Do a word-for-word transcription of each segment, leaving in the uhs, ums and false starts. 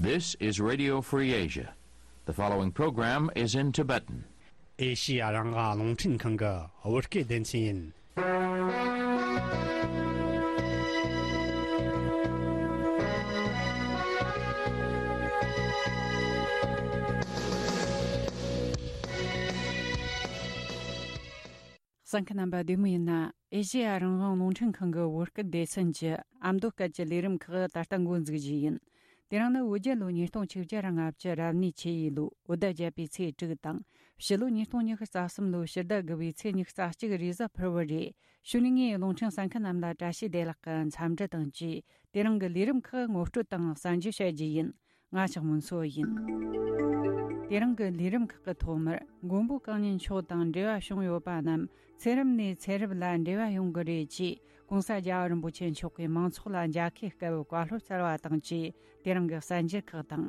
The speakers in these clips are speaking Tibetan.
This is Radio Free Asia. The following program is in Tibetan. ཨེ་ཤི་ཡ་རང་དབང་རླུང་འཕྲིན་ཁང་གི་བོད་སྐད་སྡེ་ཚན་ཡིན། གསན་མཁན་རྣམ་པ་བདེ་མོ་ཡིན་ན། ཨེ་ཤེ་ཡ་རང་དབང་རླུང་འཕྲིན་ཁང་གི་བོད་སྐད་སྡེ་ཚན་གྱི་ཨ་མདོ་སྐད་ཀྱི་ལས་རིམ་ཁག་ད་ལྟ་འགོ་འཛུགས་རྒྱུ་ཡིན། དེ་རིང་ནི་བོད་རྒྱལ་ལོ་ཉིས་སྟོང་ཆིག་བརྒྱ་ར་ལྔ་བཅུ་རབ་གནས་ཆུ་ཡོས་ལོའི་བོད་ཟླ་བརྒྱད་པའི་ཚེས་དྲུག་དང་། ཕྱི་ལོ་ཉིས་སྟོང་ཉི་ཤུ་རྩ་གསུམ་ལོའི་ཕྱི་ཟླ་དགུ་པའི་ཚེས་ཉི་ཤུ་རྩ་གཅིག་རེས་གཟའ་ཕུར་བུ་རེད། གཞུག་ནས་ངས་རླུང་འཕྲིན་གསན་མཁན་རྣམས་ལ་བཀྲ་ཤིས་བདེ་ལེགས་ཀྱི་འཚམས་འདྲི་དང་བཅས། དེ་རིང་གི་ལས་རིམ་ཁག་ངོ་སྤྲོད་དང་གསན་རྒྱུ་བྱ་རྒྱུ་ཡིན། ང་ཞག་མུན་སོ་ཡིན། དེ་རིང་གི་ལས་རིམ་ཁག་གི་ཐོག་མར་མགོན་པོ་གང་ཉིད་མཆོག་དང་འབྲེལ་བ་བྱུང་ཡོད་པ་རྣམས་ཚེ་རབས་ནས་ཚེ་རབས་ལ་འབྲེལ་བ་ཡོང་གི་རེད་ཅེས་༸གོང་ས་རྒྱལ་བ་རིན་པོ་ཆེ་མཆོག་གིས་མང་ཚོགས་ལ་མཇལ་ཁའི་སྐབས་བཀའ་སློབ་སྩལ་བ་དང་བཅས། དེ་རིང་གི་གསན་འགྱུར་ཁག་དང་།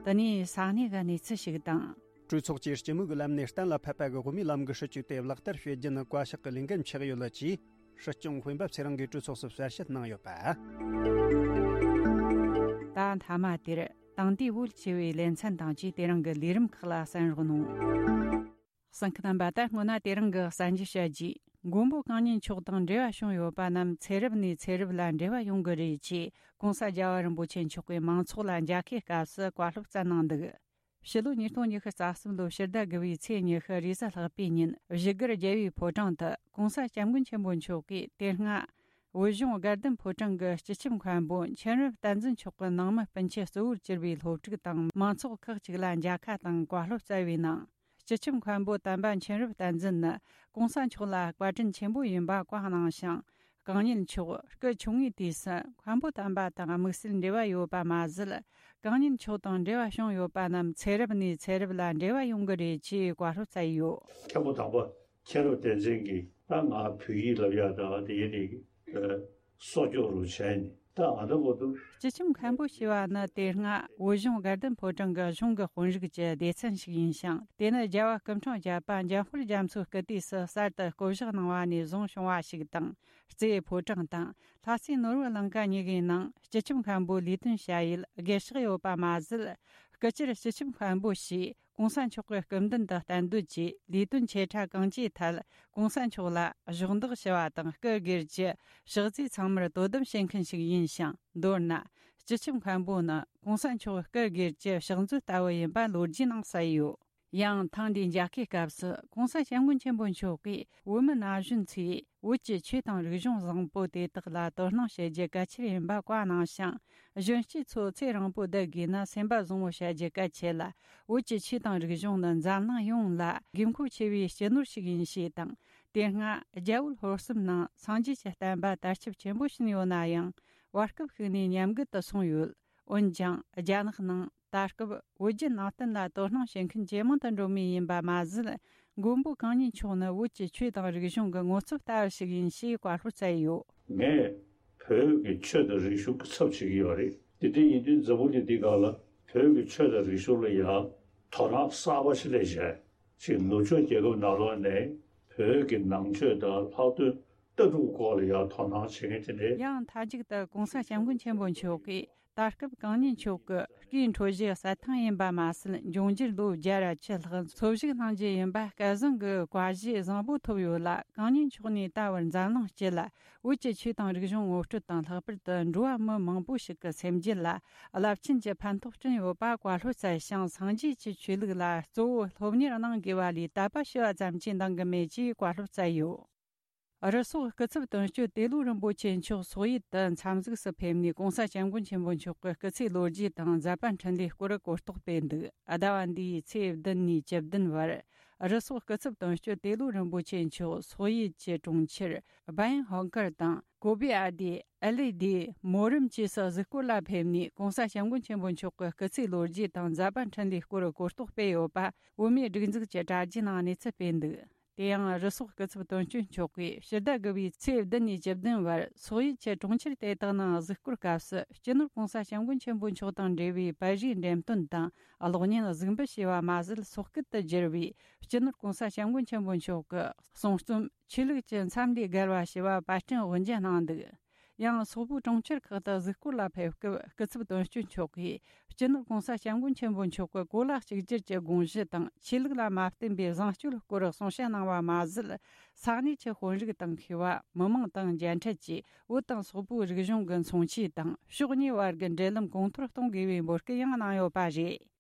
དེ་ནས་ས་གནས་ཀྱི་གནས་ཚུལ་ཞིག་དང་། གྲོས་ཚོགས་ཀྱིས་སྤྱི་མོས་ཀྱི་ལམ་ནས་གཏན་ལ་ཕབ་པ་གི་དབུ་མའི་ལམ་གྱི་སྲིད་བྱུས་དེ་ལག་བསྟར་བྱེད་རྒྱུ་ནི་བཀའ་ཤག་གི་ལས་འགན་ཆགས་ཡོད་ལ་ཅེས། སྲིད་སྐྱོང་སྤེན་པ་ཚེ་རིང་གིས་གྲོས་ཚོགས་སུ་གསལ་བཤད་གནང་ཡོད་པ། ད་མཐའ་མ་དེར་དེང་དུས་བོད་ཞི་བའི་ལེ་ཚན་དང་བཅས་དེ་རིང་གི་ལས་རིམ་ཁག་ལ་གསན་རོགས་གནང་། གསན་མཁན་རྣམ་པ། ད་སྔོན་ན་དེ་རིང་གི་གསན་རྒྱུ་བྱ་རྒྱུ། མགོན་པོ་གང་ཉིད་མཆོག་དང་འབྲེལ་བ་བྱུང་ཡོད་པ་རྣམས་ཚེ་རབས་ནས་ཚེ་རབས་ལ་འབྲེལ་བ་ཡོང་གི་རེད་ཅེས་༸གོང་ས་རྒྱལ་བ་རིན་པོ་ཆེ་མཆོག་གིས་མང་ཚོགས་ལ་མཇལ་ཁའི་སྐབས་སུ་བཀའ་སློབ་སྩལ་གནང་འདུག་ཕྱི་ལོ་ཉིས་སྟོང་ཉི་ཤུ་རྩ་གསུམ་ལོའི་ཕྱི་ཟླ་དགུ་པའི་ཚེས་ཉི་ཤུ་རེས་གཟའ་ལྷག་པའི་ཉིན་བཞུགས་སྒར་རྒྱལ་བའི་ཕོ་བྲང་དུ་༸གོང་ས་༸སྐྱབས་མགོན་ཆེན་པོ་མཆོག་གིས་དེ་སྔ་བོད་གཞུང་དགའ་ལྡན་ཕོ་བྲང་གི་སྤྱི་ཁྱབ་མཁན་པོ་མཁྱེན་རབ་བསྟན་འཛིན་མཆོག་གི་ནང་མི་སྤུན་མཆེད་གཙོ་བོར་གྱུར་པའི་སློབ་ཕྲུག་དང་མང་ཚོགས་ཁག་ཅིག་ལ་མཇལ་ཁ་དང་བཀའ་སློབ་སྩལ་བའི་ནང་། སྤྱི་ཁྱབ་མཁན་པོ་དམ་པ་མཁྱེན་རབ་བསྟན་འཛིན་ནི་༸གོང་ས་མཆོག་ལ་བཀའ་དྲིན་ཆེན་པོ་ཡིན་པ་བཀའ་གནང་ཞིང་། གང་ཉིད་མཆོག་སྐུ་ཆུང་ངུའི་དུས་སུ་མཁན་པོ་དམ་པ་དང་དམིགས་བསལ་འབྲེལ་བ་ཡོད་པ་མ་ཟད། གང་ཉིད་མཆོག་དང་འབྲེལ་བ་བྱུང་ཡོད་པ་རྣམས་ཚེ་རབས་ནས་ཚེ་རབས་ལ་འབྲེལ་བ་ཡོང་གི་རེད་ཅེས་བཀའ་སློབ་སྩལ་ཡོད། མཁན་པོ་དམ་པ་མཁྱེན་རབ་བསྟན་འཛིན་གྱིས་ད་ང་བོད་ཡིག་ལབ་ཡག་ད་དེ་ཡིན་ནི་གསོག་འཇོག་རུ་བྱས་ནས་ད་ང་ད་མོ་འདུག་སྤྱི་ཁྱབ་མཁན་པོ་ཞེས་པ་ནི་དེ་སྔ་བོད་གཞུང་དགའ་ལྡན་ཕོ་བྲང་གི་གཞུང་གི་དཔོན་རིགས་ཀྱི་སྡེ་ཚན་ཞིག་ཡིན་ཞིང་། དེ་ནི་རྒྱལ་བ་སྐུ་འཕྲེང་བརྒྱད་པ་འཇམ་དཔལ་རྒྱ་མཚོའི་སྐུ་དུས་སུ་གསར་དུ་བསྐོ་གཞག་གནང་བ་ནས་བཟུང་བྱུང་བ་ཞིག་དང་། རྩེའི་ཕོ་བྲང་དང་ལྷ་སའི་ནོར་བུ་ལང་ཀ་གཉིས་ཀའི་ནང་སྤྱི་ཁྱབ་མཁན་པོའི་ལས་དོན་བྱ་ཡུལ་སྒེར་གཤེགས་ཡོད་པ་མ་ཟད། སྐུ་ཕྱིར་སྤྱི་ཁྱབ་མཁན་པོ་ཞེས་༸གོང་ས་མཆོག་གི་སྐུ་མདུན་དུ་གཏན་སྡོད་ཀྱིས་ལས་དོན་ཆེ་ཕྲ་གང་ཅིའི་ཐད་༸གོང་ས་མཆོག་ལ་གཞོགས་འདེགས་ཞུ་བ་དང་སྐུ་སྒེར་གྱི་ཕྱག་རྫས་ཚང་མར་དོ་དམ་བྱེད་མཁན་ཞིག་ཡིན་ཞིང་། མདོར་ན། སྤྱི་ཁྱབ་མཁན་པོ་ནི་༸གོང་ས་མཆོག་སྐུ་སྒེར་གྱི་ཕྱག་མཛོད་ལྟ་བུ་ཡིན་པ་ལོ་རྒྱུས་ནང་གསལ་ཡོད། ཡང་ཐེངས་འདིའི་མཇལ་ཁའི་སྐབས་སུ་༸གོང་ས་༸སྐྱབས་མགོན་ཆེན་པོ་མཆོག་གིས་བོད་མི་ན་གཞོན་ཚོས་བོད་ཀྱི་ཆོས་དང་རིག་གཞུང་བཟང་པོ་དེ་དག་ལ་དོ་སྣང་བྱེད་རྒྱུ་གལ་ཆེར་ཡིན་པ་བཀའ་གནང་ཞིང་། གཞོན་སྐྱེས་ཚོ་ཚེ་རིང་པོ་བསྡད་དགོས་ན་སེམས་པ་བཟང་བོ་བྱ་རྒྱུ་གལ་ཆེ་ལ། བོད་ཀྱི་ཆོས་དང་རིག་གཞུང་ནི་འཛམ་གླིང་ཡོངས་ལ་དགོས་མཁོ་ཆེ་བའི་སྤྱི་ནོར་ཞིག་ཡིན་ཞེས་དང་། དེ་སྔ་རྒྱ་བོད་ལྷོ་གསུམ་ནང་སངས་རྒྱས་ཀྱི་བསྟན་པ་དར་ཁྱབ་ཆེན་པོ་ཕྱིན་ཡོད་ན་ཡང་། བར་སྐབས་ཤིག་ནས་ཉམས་རྒུད་དུ་སོང་ཡོད། འོན་ཀྱང་རྒྱ་ནག་ནང་ད་སྐབས་བོད་བརྒྱུད་ནང་བསྟན་ལ་དོ་སྣང་བྱེད་མཁན་ཇེ་མང་དུ་འགྲོ་མུས་ཡིན་པ་མ་ཟད། མགོན་པོ་གང་ཉིད་མཆོག་ནི་བོད་ཀྱི་ཆོས་དང་རིག་གཞུང་གི་ངོ་ཚབ་ལྟ་བུ་ཞིག་ཡིན་ཞེས་བཀའ་སློབ་སྩལ་ཡོད། ངས་བོད་ཀྱི་ཆོས་དང་རིག་གཞུང་གི་ཚབ་བྱེད་ཀྱི་ཡོད་རེད། དེ་འདྲ་ཡིན་དུས་འཛམ་བུ་གླིང་འདི་སྒང་ལ་བོད་ཀྱི་ཆོས་དང་རིག་གཞུང་ལ་ཡང་དོ་སྣང་གསར་པ་ཞིག་སླེབས་བྱས། ཅིག་ནུབ་ཕྱོགས་རྒྱལ་ཁབ་ནང་ལོགས་ནས་བོད་ཀྱི་ནང་ཆོས་དང་ལྷག་དོན་ལྟ་གྲུབ་སྐོར་ལ་ཡང་དོ་སྣང་བྱེད་མཁན་དེ་འདྲས། ཡང་མཐའ་མཇུག་ཏུ་༸གོང་ས་༸སྐྱབས་མགོན་ཆེན་པོ་མཆོག་གིས་ད་སྐབས་གང་ཉིད་མཆོག་གི་སྐུའི་འཕྲོད་བཞེས་གསལ་ཐང་ཡིན་པ་མ་ཟད། འབྱུང་འགྱུར་ལོ་བརྒྱ་ར་བཅུ་ལྷག་འཚོ་བཞུགས་གནང་རྒྱུ་ཡིན་པ་སྐལ་བཟང་གི་བཀའ་བཞེས་བཟང་པོ་ཐོབ་ཡོད་ལ། གང་ཉིད་མཆོག་ནས་ད་བར་འཛམ་གླིང་སྤྱི་ལ་བོད་ཀྱི་ཆོས་དང་རིག་གཞུང་ངོ་སྤྲོད་དང་། ལྷག་པར་དུ་འགྲོ་བ་མི་མང་པོ་ཞིག་གི་སེམས་རྒྱུད་ལ་རླབས་ཆེན་གྱི་ཕན་ཐོགས་བསྐྲུན་ཡོད་པ་བཀའ་སློབ་སྩལ་ཞིང་། སངས་རྒྱས་ཀྱི་ཆོས་ལུགས་ལ་གཙོ་བོ་སློབ་གཉེར་གནང་དགོས་པ་ལས་དད་པ་ཞུ་བ་ཙམ་གྱིས་འདང་གི་མེད་ཅེས་བཀའ་སློབ་སྩལ་ཡོད། རུ་སོག་སྐུ་ཚབ་དོན་གཅོད་ཏེ་ལོ་རིན་པོ་ཆེ་མཆོག་སོག་ཡུལ་དུ་འཚམས་གཟིགས་སུ་ཕེབས་ནས། ༸གོང་ས་༸སྐྱབས་མགོན་ཆེན་པོ་མཆོག་གི་སྐུ་ཚེའི་ལོ་རྒྱུས་དང་མཛད་པ་འཕྲིན་ལས་སྐོར་གོ་རྟོགས་སྤེལ་འདུག་ཟླ་བ་འདིའི་ཚེས་བདུན་ནས་བཅུ་བདུན་བར། རུ་སོག་སྐུ་ཚབ་དོན་གཅོད་ཏེ་ལོ་རིན་པོ་ཆེ་མཆོག་སོག་ཡུལ་གྱི་གྲོང་ཁྱེར་བ་ཡན་ཧོང་ཀར་དང་། ཀོ་པི་ཨ་དི། ཨེ་ལི་དི། མོ་རམ་བཅས་སུ་གཟིགས་སྐོར་ལ་ཕེབས་ནས། ༸གོང་ས་༸སྐྱབས་མགོན་ཆེན་པོ་མཆོག་གི་སྐུ་ཚེའི་ལོ་རྒྱུས་དང་མཛད་པ་འཕྲིན་ལས་སྐོར་གོ་རྟོགས་སྤེལ་ཡོད་པ། བོད་མིའི་སྒྲིག་འཛུགས་ཀྱི་དྲ་རྒྱའི་ནང་གནས་ཚུལ་སྤེལ་འདུག་དེ་ཡང་རུ་སོག་སྐུ་ཚབ་དོན་གཅོད་མཆོག་གིས་ཕྱི་ཟླ་དགུ་པའི་ཚེས་བདུན་ནས་བཅུ་བདུན་བར་སོག་ཡུལ་གྱི་གྲོང་ཁྱེར་དེ་དག་ནང་གཟིགས་སྐོར་སྐབས་སུ། སྤྱི་ནོར་༸གོང་ས་༸སྐྱབས་མགོན་ཆེན་པོ་མཆོག་དང་འབྲེལ་བའི་པར་རིས་འགྲེམས་སྟོན་དང་གློག་བརྙན་གཟིགས་འབུལ་བྱས་པ་མ་ཟད། སོག་སྐད་དུ་བསྒྱུར་བའི་སྤྱི་ནོར་༸གོང་ས་༸སྐྱབས་མགོན་ཆེན་པོ་མཆོག་གི་གསུང་རྩོམ། ཆོས་ལུགས་ཀྱི་མཚམས་ལས་བརྒལ་བ་ཞེས་པ་པར་སྐྲུན་དབུ་འབྱེད་གནང་འདུག་ཡང་སོག་པོའི་གྲོང་ཁྱེར་ཁག་ཏུ་གཟིགས་སྐོར་ལ་ཕེབས་སྐབས། སྐུ་ཚབ་དོན་གཅོད་མཆོག་གིས་སྤྱི་ནོར་༸གོང་ས་༸སྐྱབས་མགོན་ཆེན་པོ་མཆོག་གི་གོ་ལ་གཅིག་གྱུར་གྱི་དགོངས་གཞི་དང་། ཆོས་ལུགས་ལ་མ་བརྟེན་པའི་བཟང་སྤྱོད་སྐོར་གསུང་བཤད་གནང་བ་མ་ཟད། ས་གནས་ཀྱི་དཔོན་རིགས་དང་མཁས་པ། མི་མང་དང་མཇལ་འཕྲད་ཀྱིས་བོད་དང་སོག་པོའི་རིག་གཞུང་གི་མཚོན་བྱེད་དང་། ཕྱོགས་གཉིས་བར་གྱི་འབྲེལ་ལམ་གོང་མཐོར་གཏོང་དགོས་པའི་འབོད་སྐུལ་ཡང་གནང་ཡོད་པ་རེད།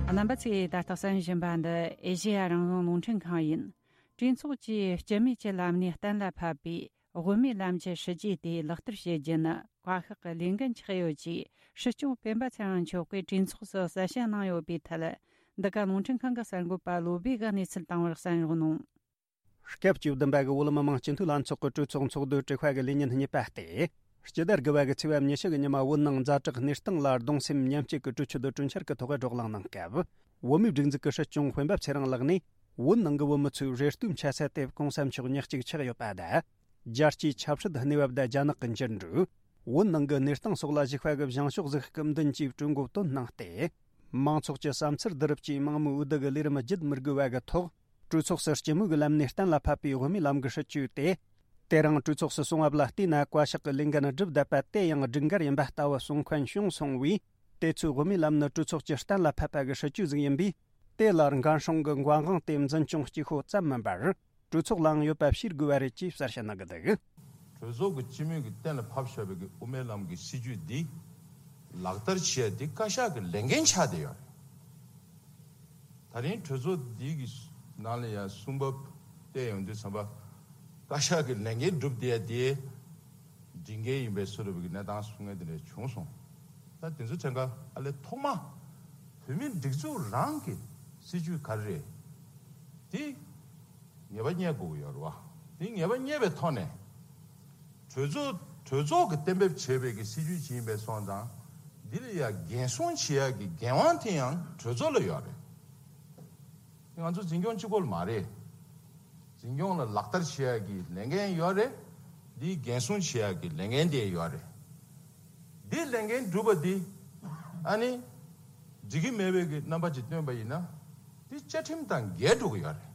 རྣམ་པ་ཚོས་ད་ལྟ་གསན་བཞིན་པ་འདི་ཨེ་ཤེ་ཡ་རང་དབང་རླུང་འཕྲིན་ཁང་ཡིན། གྲོས་ཚོགས་ཀྱིས་སྤྱི་མོས་ཀྱི་ལམ་ནས་གཏན་ལ་ཕབ་པའི་དབུ་མའི་ལམ་གྱི་སྲིད་ཇུས་དེ་ལག་བསྟར་བྱེད་རྒྱུ་ནི་བཀའ་ཤག་གི་ལས་འགན་ཆགས་ཡོད་ཅེས། སྲིད་སྐྱོང་སྤེན་པ་ཚེ་རིང་མཆོག་གིས་གྲོས་ཚོགས་སུ་གསལ་བཤད་གནང་ཡོད་པའི་ཐད། འདི་ག་རླུང་འཕྲིན་ཁང་གི་གསར་འགོད་པ་བློ་བྷེ་གིས་གནས་ཚུལ་བཏང་བར་གསན་རོགས་གནང་། སྐབས་བཅུ་བདུན་པ་གི་བོད་མི་མང་སྤྱི་འཐུས་ལྷན་ཚོགས་ཀྱི་གྲོས་ཚོགས་ཚོགས་འདུའི་དྲི་བ་གི་ལས་ཉིན་གཉིས་པ་སྟེ། སྤྱི་ཟླ་དགུ་པ་གི་ཚེས་པ་ཉི་ཤུ་གི་ཉི་མ། བོད་ནང་ཛ་དྲག་གནས་སྟངས་ལ་གདུང་སེམས་མཉམ་སྐྱེད་ཀྱི་གྲོས་ཆོད་དུ་གྲོས་འཆར་གྱི་ཐོག་བགྲོ་གླེང་གནང་སྐབས། བོད་མིའི་སྒྲིག་འཛུགས་ཀྱི་སྲིད་སྐྱོང་སྤེན་པ་ཚེ་རིང་ལགས་ནས། བོད་ནང་གི་བོད་མི་ཚོས་རེ་ལྟོས་འཆའ་ས་དེ་༸གོང་ས་མཆོག་ཉག་གཅིག་ཆགས་ཡོད་པ་དང་། རྒྱལ་སྤྱིའི་ཆབ་སྲིད་གནས་བབ་དང་རྒྱ་ནག་གི་འགྱུར་འགྲོས། བོད་ནང་གི་གནས་སྟངས་སོགས་ལ་གཞིགས་པ་གི་བཞེངས་ཕྱོགས་གཟིགས་སྐབས་མདུན་གྱིས་གྲོས་འགོ་བཏོན་གནང་སྟེ། མང་ཚོགས་ཀྱི་བསམ་ཚུལ་བསྡུ་རུབ་ཀྱིས་མང་མོས་འོས་བསྡུ་གི་ལས་རིམ་བརྒྱུད་མི་དགོས་པ་གི་ཐོག་གྲོས་ཚོགས་སུ་སྤྱི་མོས་ཀྱི་ལམ་ནས་གཏན་ལ་ཕབ་པའི་དབུ་མའི་ལམ་གྱི་སྲིད་ཇུས་དེ། དེ་རིང་གྲོས་ཚོགས་སུ་སོང་བ་ལ་བལྟས་ན། བཀའ་ཤག་གི་ལས་འགན་བསྒྲུབས་བསྡད་པ་དེ་ཡང་སྒྲིག་འགལ་ཡིན་པ་ལྟ་བུ་གསུང་མཁན་བྱུང་སོང་བས། དེ་ཚོའི་དབུ་མའི་ལམ་ནི་གྲོས་ཚོགས་ཀྱིས་གཏན་ལ་ཕབ་པ་གི་སྲིད་ཇུས་ཟིག་ཡིན་པས། དེ་ལ་འགན་སྲུང་གི་འགན་དབང་དེ་འཛིན་སྐྱོང་གཅིག་པོ་ཙམ་མིན་པར། གྲོས་ཚོགས་ལའང་ཡོད་པ་ཤེས་དགོས་པ་རེད་ཅེས་གསལ་བཤད་གནང་གི་འདུག་གྲོས་ཚོགས་ཀྱི་སྤྱི་མོས་ཀྱིས་གཏན་ལ་ཕབ་བཞག་པའི་གི་དབུ་མའི་ལམ་གྱི་སྲིད་ཇུས་འདི་ལག་བསྟར་བྱེད་ཡ་འདི་བཀའ་ཤག་གི་ལས་འགན་ཆགས་བསྡད་ཡོད་རེད། ད་རིང་གྲོས་ཚོགས་འདི་གི་ནང་ལ་ཡང་གསུང་བབ་བལྟས་ཡོང་དུས་ཙམ་པ། བཀའ་ཤག་གི་ལས་འགན་བསྒྲུབས་བསྡད་ཡ་དེ་སྒྲིག་འགལ་ཡིན་པའི་བཟོ་འདྲ་བའི་གི་གནས་སྟངས་གསུང་མཁན་དེ་འདྲ་བྱུང་སོང་། ད་དེ་ཚོ་དྲན་ག་ཨ་ལས་ཐོག་མ་བོད་མིའི་སྒྲིག་འཛུགས་རང་གི་སྲིད་ཇུས་ག་རེ་རེད། དེ་ངེས་པ་རྙེད་དགོས་ཀྱི་ཡོད་རེད་བ། དེ་ངེས་པ་རྙེད་པའི་ཐོག་ནས། གྲོས་ཚོགས་གྲོས་ཚོགས་ཀྱིས་གཏན་འབེབས་བྱས་པའི་གི་སྲིད་ཇུས་ཅིག་ཡིན་པའི་སོང་ཙང་། འདི་ལ་ཡ་འགན་སྲུང་བྱེད་ཡ་གི་འགན་དབང་དེ་ཡང་གྲོས་ཚོགས་ལ་ཡོད་རེད། ང་ཚོ་འཛིན་སྐྱོང་གཅིག་པོ་ལ་མ་རེད། འཛིན་སྐྱོང་ལ་ལག་བསྟར་བྱེད་ཡ་གི་ལས་འགན་ཡོད་རེད། འདིའི་འགན་སྲུང་བྱེད་ཡ་གི་ལས་འགན་དེ་ཡོད་རེད། འདིའི་ལས་འགན་སྒྲུབ་པ་འདི་ཨ་ནི་འགྲིག་གི་མེད་པའི་གི་རྣམ་པ་ཅིག་སྟོན་པ་ཡིན་ན། འདི་བཅའ་ཁྲིམས་དང་འགལ་འགྲོ་གི་ཡོད་རེད།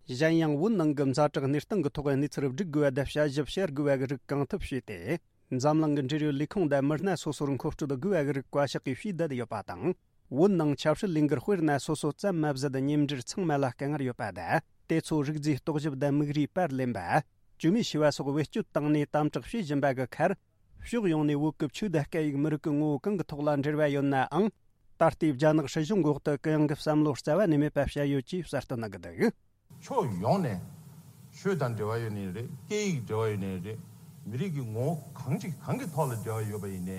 གཞན་ཡང་། བོད་ནང་གི་ཛ་དྲག་གནས་སྟངས་ཀྱི་ཐོག་གནས་ཚུལ་སྒྲིག་དགོས་པ་དང་དཔྱད་ཞིབ་བྱེད་དགོས་པ་གི་རིགས་གང་ཐུབ་བྱས་ཏེ། འཛམ་གླིང་གི་འབྲེལ་ཡོད་ལས་ཁུངས་དང་མི་སྣ་སོ་སོར་མཁོ་སྤྲོད་དགོས་པ་གི་རིགས་བཀའ་ཤག་གིས་ཞུས་བསྡད་ཡོད་པ་དང་། བོད་ནང་ཆབ་སྲིད་ལས་འགུལ་དཔེར་ན་སོ་སོ་ཙམ་མ་ཟད་མཉམ་འབྲེལ་ཚང་མ་ལ་དཀའ་ངལ་ཡོད་པ་དང་། དེ་ཚོ་རིགས་རྫས་རྟོག་ཞིབ་དང་དམིགས་རིས་པར་ལེན་པ། བཅོས་མའི་བྱ་བ་སོགས་བེད་སྤྱོད་བཏང་ནས་དམ་དྲག་བྱེད་བཞིན་པ་གི་ཁར། ཕྱོགས་ཡོངས་ནས་བོད་ཀྱི་ཆོས་དང་སྐད་ཡིག་མི་རིགས་ཀྱི་ངོ་བོ་གང་གི་ཐོག་ལ་འབྲེལ་བ་ཡོད་ནའང་། ད་ལྟའི་རྒྱ་ནག་སྲིད་གཞུང་འོག་ཏུ་གུ་ཡངས་ཀྱི་བསམ་བློ་རྩ་བ་ནས་མེད་པ་བཤད་ཡོད་ཅེས་གསལ་སྟོན་གནང་གི་འདུག་ཕྱོགས་ཡོངས་ནས་ཆོས་དང་འབྲེལ་བ་ཡོད་ནའི་རེད། སྐད་ཡིག་འབྲེལ་བ་ཡོད་ནའི་རེད། མི་རིགས་ཀྱི་ངོ་བོ་གང་ཅིག་གང་གི་ཐོག་ལ་འབྲེལ་བ་ཡོད་པ་ཡིན་ནའི།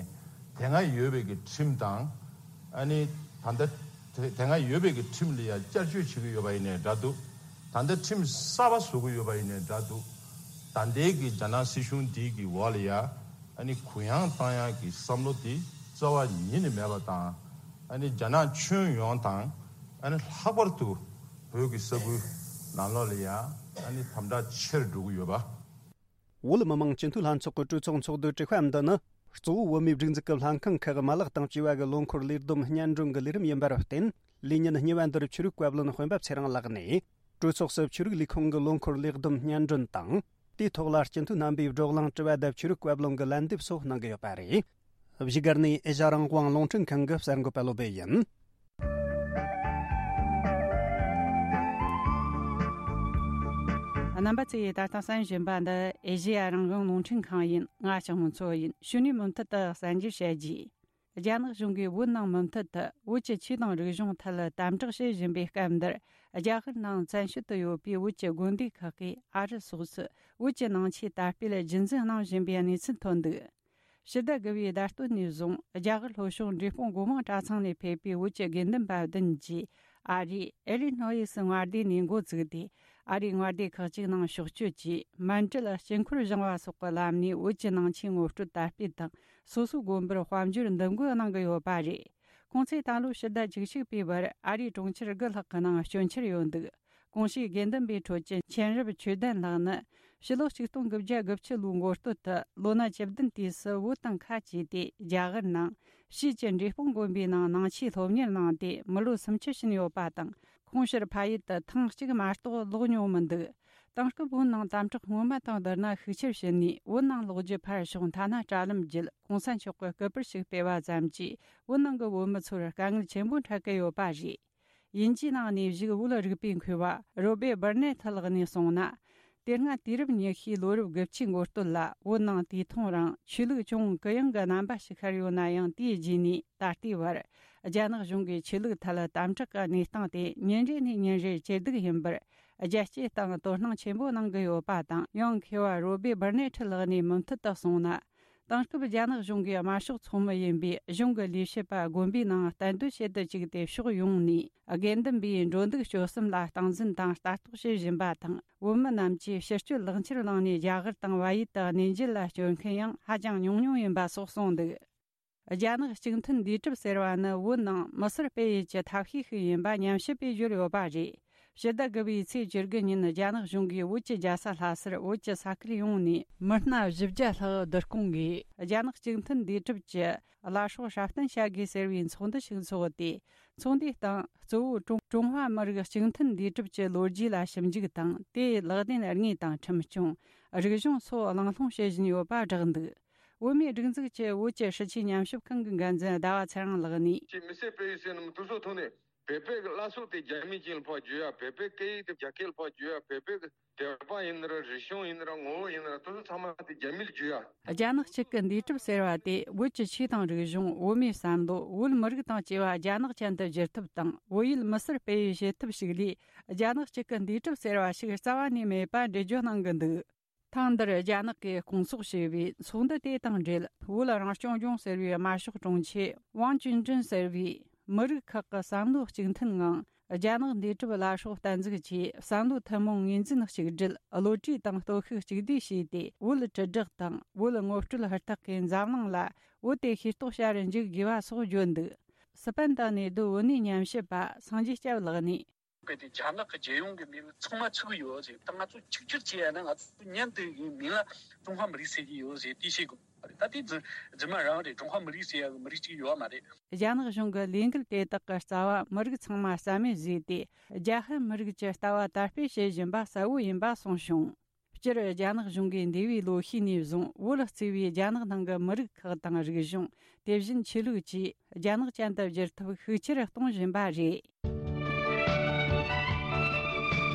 དེ་སྔ་ཡོད་པའི་གི་ཁྲིམས་དང་། ཨ་ནི་ད་ལྟ་དེ་དེ་སྔ་ཡོད་པའི་གི་ཁྲིམས་ལ་ཡང་བསྐྱར་བཅོས་བྱེད་ཀྱི་ཡོད་པ་ཡིན་ནའི་འདྲ་འདུག་ད་ལྟ་ཁྲིམས་གསར་པ་བཟོ་གི་ཡོད་པ་ཡིན་ནའི་འདྲ་འདུག་ད་ལྟའི་གི་རྒྱ་ནག་སྲིད་གཞུང་འདི་གི་འོག་ལ་ཡ། ཨ་ནི་གུ་ཡངས་བཏང་ཡག་གི་བསམ་བློ་དེ་རྩ་བ་ཉིད་ནས་མེད་པ་དང་། ཨ་ནི་རྒྱ་ནག་ཁྱོན་ཡོངས་དང་། ཨ་ནི་ལྷག་པར་དུ་བོད་ཀྱི་ས་ཁུལ་ནང་ལོགས་ལ་ཡ། ཨ་ནི་དམ་དྲག་ཆེར་འགྲོ་གི་ཡོད་པ། བོད་མི་མང་སྤྱི་འཐུས་ལྷན་ཚོགས་ཀྱི་གྲོས་ཚོགས་ཚོགས་འདུའི་དྲི་བ་འདི་ནི། གཙོ་བོ་བོད་མིའི་སྒྲིག་འཛུགས་ཀྱི་ལྷན་ཁང་ཁག་མ་ལག་དང་བཅས་པ་གི་ལོ་འཁོར་ལས་བསྡོམས་སྙན་སྒྲོན་གྱི་ལས་རིམ་ཡིན་པར་བརྟེན། ལས་ཉིན་གཉིས་པ་འདིར་ཆོས་རིག་བཀའ་བློན་སྤེན་པ་ཚེ་རིང་ལགས་ནས། གྲོས་ཚོགས་སུ་ཆོས་རིག་ལས་ཁུངས་ཀྱི་ལོ་འཁོར་ལས་བསྡོམས་སྙན་སྒྲོན་དང་། དེའི་ཐོག་ལ་སྤྱི་འཐུས་རྣམ་པས་བགྲོ་གླེང་དྲི་བ་དང་ཆོས་རིག་བཀའ་བློན་གྱི་ལན་འདེབས་སོགས་གནང་གི་ཡོད་པ་རེད། བཞུགས་སྒར་ནས་ཨེ་ཤ་རང་དབང་རླུང་འཕྲིན་ཁང་གི་གསར་འགོད་པ་བློ་བྷེ་ཡིན། རྣམ་པ་ཚོས་ད་ལྟ་གསན་བཞིན་པ་འདི་ཨེ་ཤེ་ཡ་རང་དབང་རླུང་འཕྲིན་ཁང་ཡིན། ང་ཞང་མུ་མཚོ་ཡིན། གཞུག་ནས་མུ་མཐུད་དུ་གསར་འགྱུར་བཤད་རྒྱུ། རྒྱ་ནག་གཞུང་གིས་བོད་ནང་མུ་མཐུད་དུ་བོད་ཀྱི་ཆོས་དང་རིག་གཞུང་ཐད་དམ་དྲག་བྱེད་བཞིན་པའི་སྐབས་འདིར། རྒྱ་གར་ནང་བཙན་བྱོལ་དུ་ཡོད་པའི་བོད་ཀྱི་དགོན་སྡེ་ཁག་གིས་ཨ་རི་སོགས་སུ་བོད་ཀྱི་ནང་ཆོས་དར་སྤེལ་རྒྱུན་འཛིན་གནང་བཞིན་པའི་གནས་ཚུལ་ཐོན་འདུག་ཕྱི་ཟླ་དགུ་པའི་ཟླ་སྟོད་ནས་བཟུང་རྒྱ་གར་ལྷོ་ཕྱོགས་འབྲས་སྤུངས་སྒོ་མང་གྲྭ་ཚང་ནས་ཕེབས་པའི་བོད་ཀྱི་དགེ་འདུན་པ་བདུན་གྱིས་ཨ་རིའི་ཨེ་ལི་ནོ་ཡི་སི་མངའ་སྡེ་ནས་འགོ་བཙུགས་ཏེ། ཨ་རིའི་མངའ་སྡེ་ཁག་ཅིག་ནང་ཕྱོགས་བསྐྱོད་ཀྱིས་མཎྜལ་དཀྱིལ་འཁོར་བཞེངས་པ་སོགས་ཀྱི་ལམ་ནས་བོད་ཀྱི་ནང་ཆོས་ངོ་སྤྲོད་དར་སྤེལ་དང་། སོ་སོའི་དགོན་པར་དཔལ་འབྱོར་འདེམས་བསྐོ་གནང་གི་ཡོད་པ་རེད། ཁོང་ཚོས་ད་ལོའི་ཕྱི་ཟླ་བཅུ་གཅིག་པའི་བར་ཨ་རིའི་གྲོང་ཁྱེར་དགུ་ལྷག་གི་ནང་སྐྱོད་འཆར་ཡོད་འདུག་གོང་ཞུས་དགེ་འདུན་པའི་ཁྲོད་ཀྱི་མཁྱེན་རབ་ཆོས་ལྡན་ལགས་ནི། ཕྱི་ལོ་ཆིག་སྟོང་དགུ་བརྒྱ་དགུ་བཅུ་ལོའི་འགོ་སྟོད་དུ་ལོ་ན་བཅུ་བདུན་དུས་སུ་བོད་དང་ཁ་གྱེས་ཏེ་རྒྱ་གར་ནང་ཕྱིས་ཀྱི་འབྲས་སྤུངས་དགོན་པའི་ནང་ནང་ཆོས་སློབ་གཉེར་གནང་སྟེ་མི་ལོ་སུམ་ཅུ་ཕྱིན་ཡོད་པ་དང་། ཁོང་ཕྱིར་ཕ་ཡུལ་དུ་ཐེངས་གཅིག་མ་གཏོགས་ལོག་མྱོང་མི་འདུག་དེང་སྐབས་བོད་ནང་དམ་དྲག་སྔོན་མ་དང་བསྡུར་ན་ཤུགས་ཆེར་ཕྱིན་ནས། བོད་ནང་ལོག་རྒྱུ་ཕར་ཞོག་མཐའ་ན་དྲ་ལམ་བརྒྱུད་གོང་ས་མཆོག་གི་སྐུ་པར་ཞིག་སྤེལ་བ་ཙམ་གྱིས་བོད་ནང་གི་བོད་མི་ཚོར་དཀའ་ངལ་ཆེན་པོ་འཕྲད་ཀྱི་ཡོད་པ་རེད། དབྱིན་ཇིའི་ནང་གནས་བཞུགས་བོད་རིག་པའི་མཁས་པ་རོ་སྦེ་སྦུར་ནེ་ཐི་ལགས་ནས་གསུངས་ན། དེ་སྔ་དུས་རབས་ཉི་ཤུའི་ལོ་རབས་དགུ་བཅུའི་འགོ་སྟོད་ལ་བོད་ནང་དུས་ཐུང་རིང་ཆོས་ལུགས་ཅུང་གུ་ཡངས་ཀྱི་རྣམ་པ་ཞིག་ཤར་ཡོད་ན་ཡང་། དེའི་རྗེས་ནས་ད་ལྟའི་བར་རྒྱ་ནག་གཞུང་གིས་ཆོས་ལུགས་ཐད་དམ་དྲག་གི་གནས་སྟངས་དེ་ཉིན་རེ་ནས་ཉིན་རེར་ཇེ་སྡུག་ཡིན་པར། རྒྱལ་སྤྱིའི་སྟེང་དོ་སྣང་ཆེན་པོ་གནང་གི་ཡོད་པ་དང་། ཡང་མཁས་པ་རོ་སྦེ་སྦུར་ནེ་ཐི་ལགས་ནས་མུ་མཐུད་དུ་གསུངས་ན། དེང་སྐབས་རྒྱ་ནག་གཞུང་གིས་དམར་ཤོག་ཚོགས་མི་ཡིན་པའི་གཞུང་གི་ལས་བྱེད་པ་དགོན་པའི་ནང་གཏན་སྡོད་བྱེད་དུ་བཅུག་སྟེ། ཕྱོགས་ཡོངས་ནས་དགེ་འདུན་པའི་འགྲོ་འདུག་སྤྱོད་གསུམ་ལ་སྟངས་འཛིན་དང་ལྟ་རྟོག་བྱེད་བཞིན་པ་དང་། བོད་མི་རྣམས་ཀྱིས་ཕྱི་སྐྱོད་ལག་འཁྱེར་བླངས་ནས་རྒྱ་གར་དང་བལ་ཡུལ་དུ་གནས་མཇལ་ལ་བསྐྱོད་མཁན་ཡང་ཧ་ཅང་ཉུང་ཉུང་ཡིན་པ་སོགས་གསུངས་འདུག་རྒྱ་ནག་གཅིག་མཐུན་འདུས་གྲུབ་ཟེར་བ་ནི་བོད་ནང་མི་སེར་སྤེལ་ཡུལ་གྱི་ཐབས་ཤེས་ཤིག་ཡིན་པ་ཉམས་ཞིབ་པས་བརྗོད་ཡོད་པ་རེད། ཕྱི་ཟླ་དགུ་པའི་ཚེས་བཅུ་དགུ་ཉིན་རྒྱ་ནག་གཞུང་གིས་བོད་ཀྱི་རྒྱལ་ས་ལྷ་སར་བོད་ཀྱི་ས་ཁུལ་ཡོངས་ནས་མི་སྣ་བཞི་བརྒྱ་ལྷག་བསྡུ་སྐོང་གིས་རྒྱ་ནག་གཅིག་མཐུན་འདུས་གྲུབ་ཀྱི་བླ་སྲོག་སྲ་བརྟན་བྱ་དགོས་ཟེར་བའི་ཚོགས་འདུ་ཞིག་འཚོགས་ཏེ། ཚོགས་འདུའི་སྟེང་གཙོ་བོ་ཀྲུང་ཀྲུང་ཧྭ་མི་རིགས་གཅིག་མཐུན་འདུས་གྲུབ་ཀྱི་ལོ་རྒྱུས་ལ་ཞིབ་འཇུག་དང་། དེའི་ལག་ལེན་དངོས་དང་ཁྲིམས་སྐྱོང་། རིག་གཞུང་སོགས་གླེང་སློང་བྱེད་བཞིན་ཡོད་པ་བསྒྲགས་འདུག་བོད་མིའི་སྒྲིག་འཛུགས་ཀྱི་བོད་ཀྱི་སྲིད་བྱུས་ཉམས་ཞིབ་ཁང་གི་འགན་འཛིན་ཟླ་བ་ཚེ་རིང་ལགས་ནས། ཅེས་མི་སེར་སྤེལ་ཡུལ་ཟེར་ནི་མི་དུ་སོ་ཐོག་ནས་བོད་པའི་གི་བླ་སྲོག་དེ་རྒྱ་མིའི་ཅན་ལ་ཕར་བརྗོད་ཡ། བོད་པའི་སྐད་ཡིག་དེ་རྒྱ་སྐད་ལ་ཕར་བརྗོད་ཡ། བོད་པའི་གི་བསྟན་པ་ཡིན་ན་ར། རིག་གཞུང་ཡིན་ན་ར། ངོ་བོ་ཡིན་ན་ར། དེ་ཚོ་ཚང་མ་དེ་རྒྱ་མིར་བརྗོད་ཡ། རྒྱ་ནག་གཅིག་གི་འདུས་གྲུབ་ཟེར་བ་དེ་བོད་ཀྱི་ཆོས་དང་རིག་གཞུང་། བོད་མིའི་བསམ་བློ། བོད་མི་རིགས་དང་བཅས་པ་རྒྱ་ནག་ཅན་དུ་བསྒྱུར་ཐབས་དང་། བོད་ཡུལ་མི་སེར་སྤེལ་ཡུལ་བྱེད་ཐབས་ཤིག་ལས། རྒྱ་ནག་གཅིག་གི་འདུས་གྲུབ་ཟེར་བ་ཞིག་རྩ་བ་ནས་མེད་པ་འགྲེལ་བརྗོད་གནང་གི་འདུག་ཐེངས་འདིར་རྒྱ་ནག་གིས་སྐོང་ཚོགས་བྱས་པའི་ཚོགས་འདུ་དེ་དང་འབྲེལ། བོད་རང་སྐྱོང་ལྗོངས་ཟེར་བའི་དམར་ཤོག་དྲུང་ཆེ་ཝང་ཅུན་ཀྲིན་ཟེར་བས། མི་རིགས་ཁག་གི་བསམ་བློ་གཅིག་མཐུན་ངང་རྒྱ་ནག་འདུས་གྲུབ་བླ་སྲོག་བསྟན་འཛུགས་ཀྱིས་བསམ་བློ་ཐུན་མོང་ངོས་འཛིན་གཅིག་སྒྲིལ། བློ་གྲོས་དང་སྟོབས་ཤུགས་གཅིག་བསྡུས་བྱས་ཏེ། བོད་དྲིལ་བསྒྲགས་དང་བོད་ངོ་སྤྲོད་ཧུར་ཐག་གིས་འཛམ་གླིང་ལ་བོད་དེ་ཤེས་རྟོགས་བྱ་རུ་འཇུག་དགོས་པ་སོགས་བརྗོད་འདུག་སི་པན་དང་གནས་སྡོད་བོད་གནས་ཉམས་ཞིབ་པ་སངས་རྒྱས་སྐྱབས་ལགས་ནས། གལ་ཏེ་རྒྱ་ནག་གི་རྒྱལ་ཡོངས་ཀྱི་མིང་ཚང་མ་ཚུགས་ཡོད་ཟེར། ད་ང་ཚོ་གཅིག་གྱུར་བྱས་ཡ་ན། ང་ཚོ་མཉམ་དུ་ཡིན་མིང་ལ་ཀྲུང་ཧྭ་མི་རིགས་ཟེར་གྱི་ཡོད་ཟེར། དེ་ཤེས་དགོས་པ་རེད། ད་དེ་རྫུན་རྫུན་མ་རང་རེད། ཀྲུང་ཧྭ་མི་རིགས་ཟེར་ཡ་གི་མི་རིགས་གཅིག་ཡོད་མ་རེད། རྒྱ་ནག་གཞུང་གི་ལས་འགུལ་དེ་དག་གི་རྩ་བ་མི་རིགས་ཚང་མ་རྩ་མེད་བཟོས་ཏེ། རྒྱ་ཧན་མི་རིགས་ཀྱི་ལྟ་བ་དར་སྤེལ་བྱེད་བཞིན་པ་གསལ་བོ་ཡིན་པ་གསུངས་བྱུང་། སྤྱིར་རྒྱ་ནག་གཞུང་གིས་འདས་པའི་ལོ་ཤས་ནས་བཟུང་བོད་གཙོས་པའི་རྒྱ་ནག་ནང་གི་མི་རིགས་ཁག་དང་རིག་གཞུང་། དེ་བཞིན་ཆོས་ལུགས་བཅས་རྒྱ་ནག་ཅན་དུ་བསྒྱུར་ཐབས་ཤུགས་ཆེར་གཏོང་བཞིན་པ་རེད།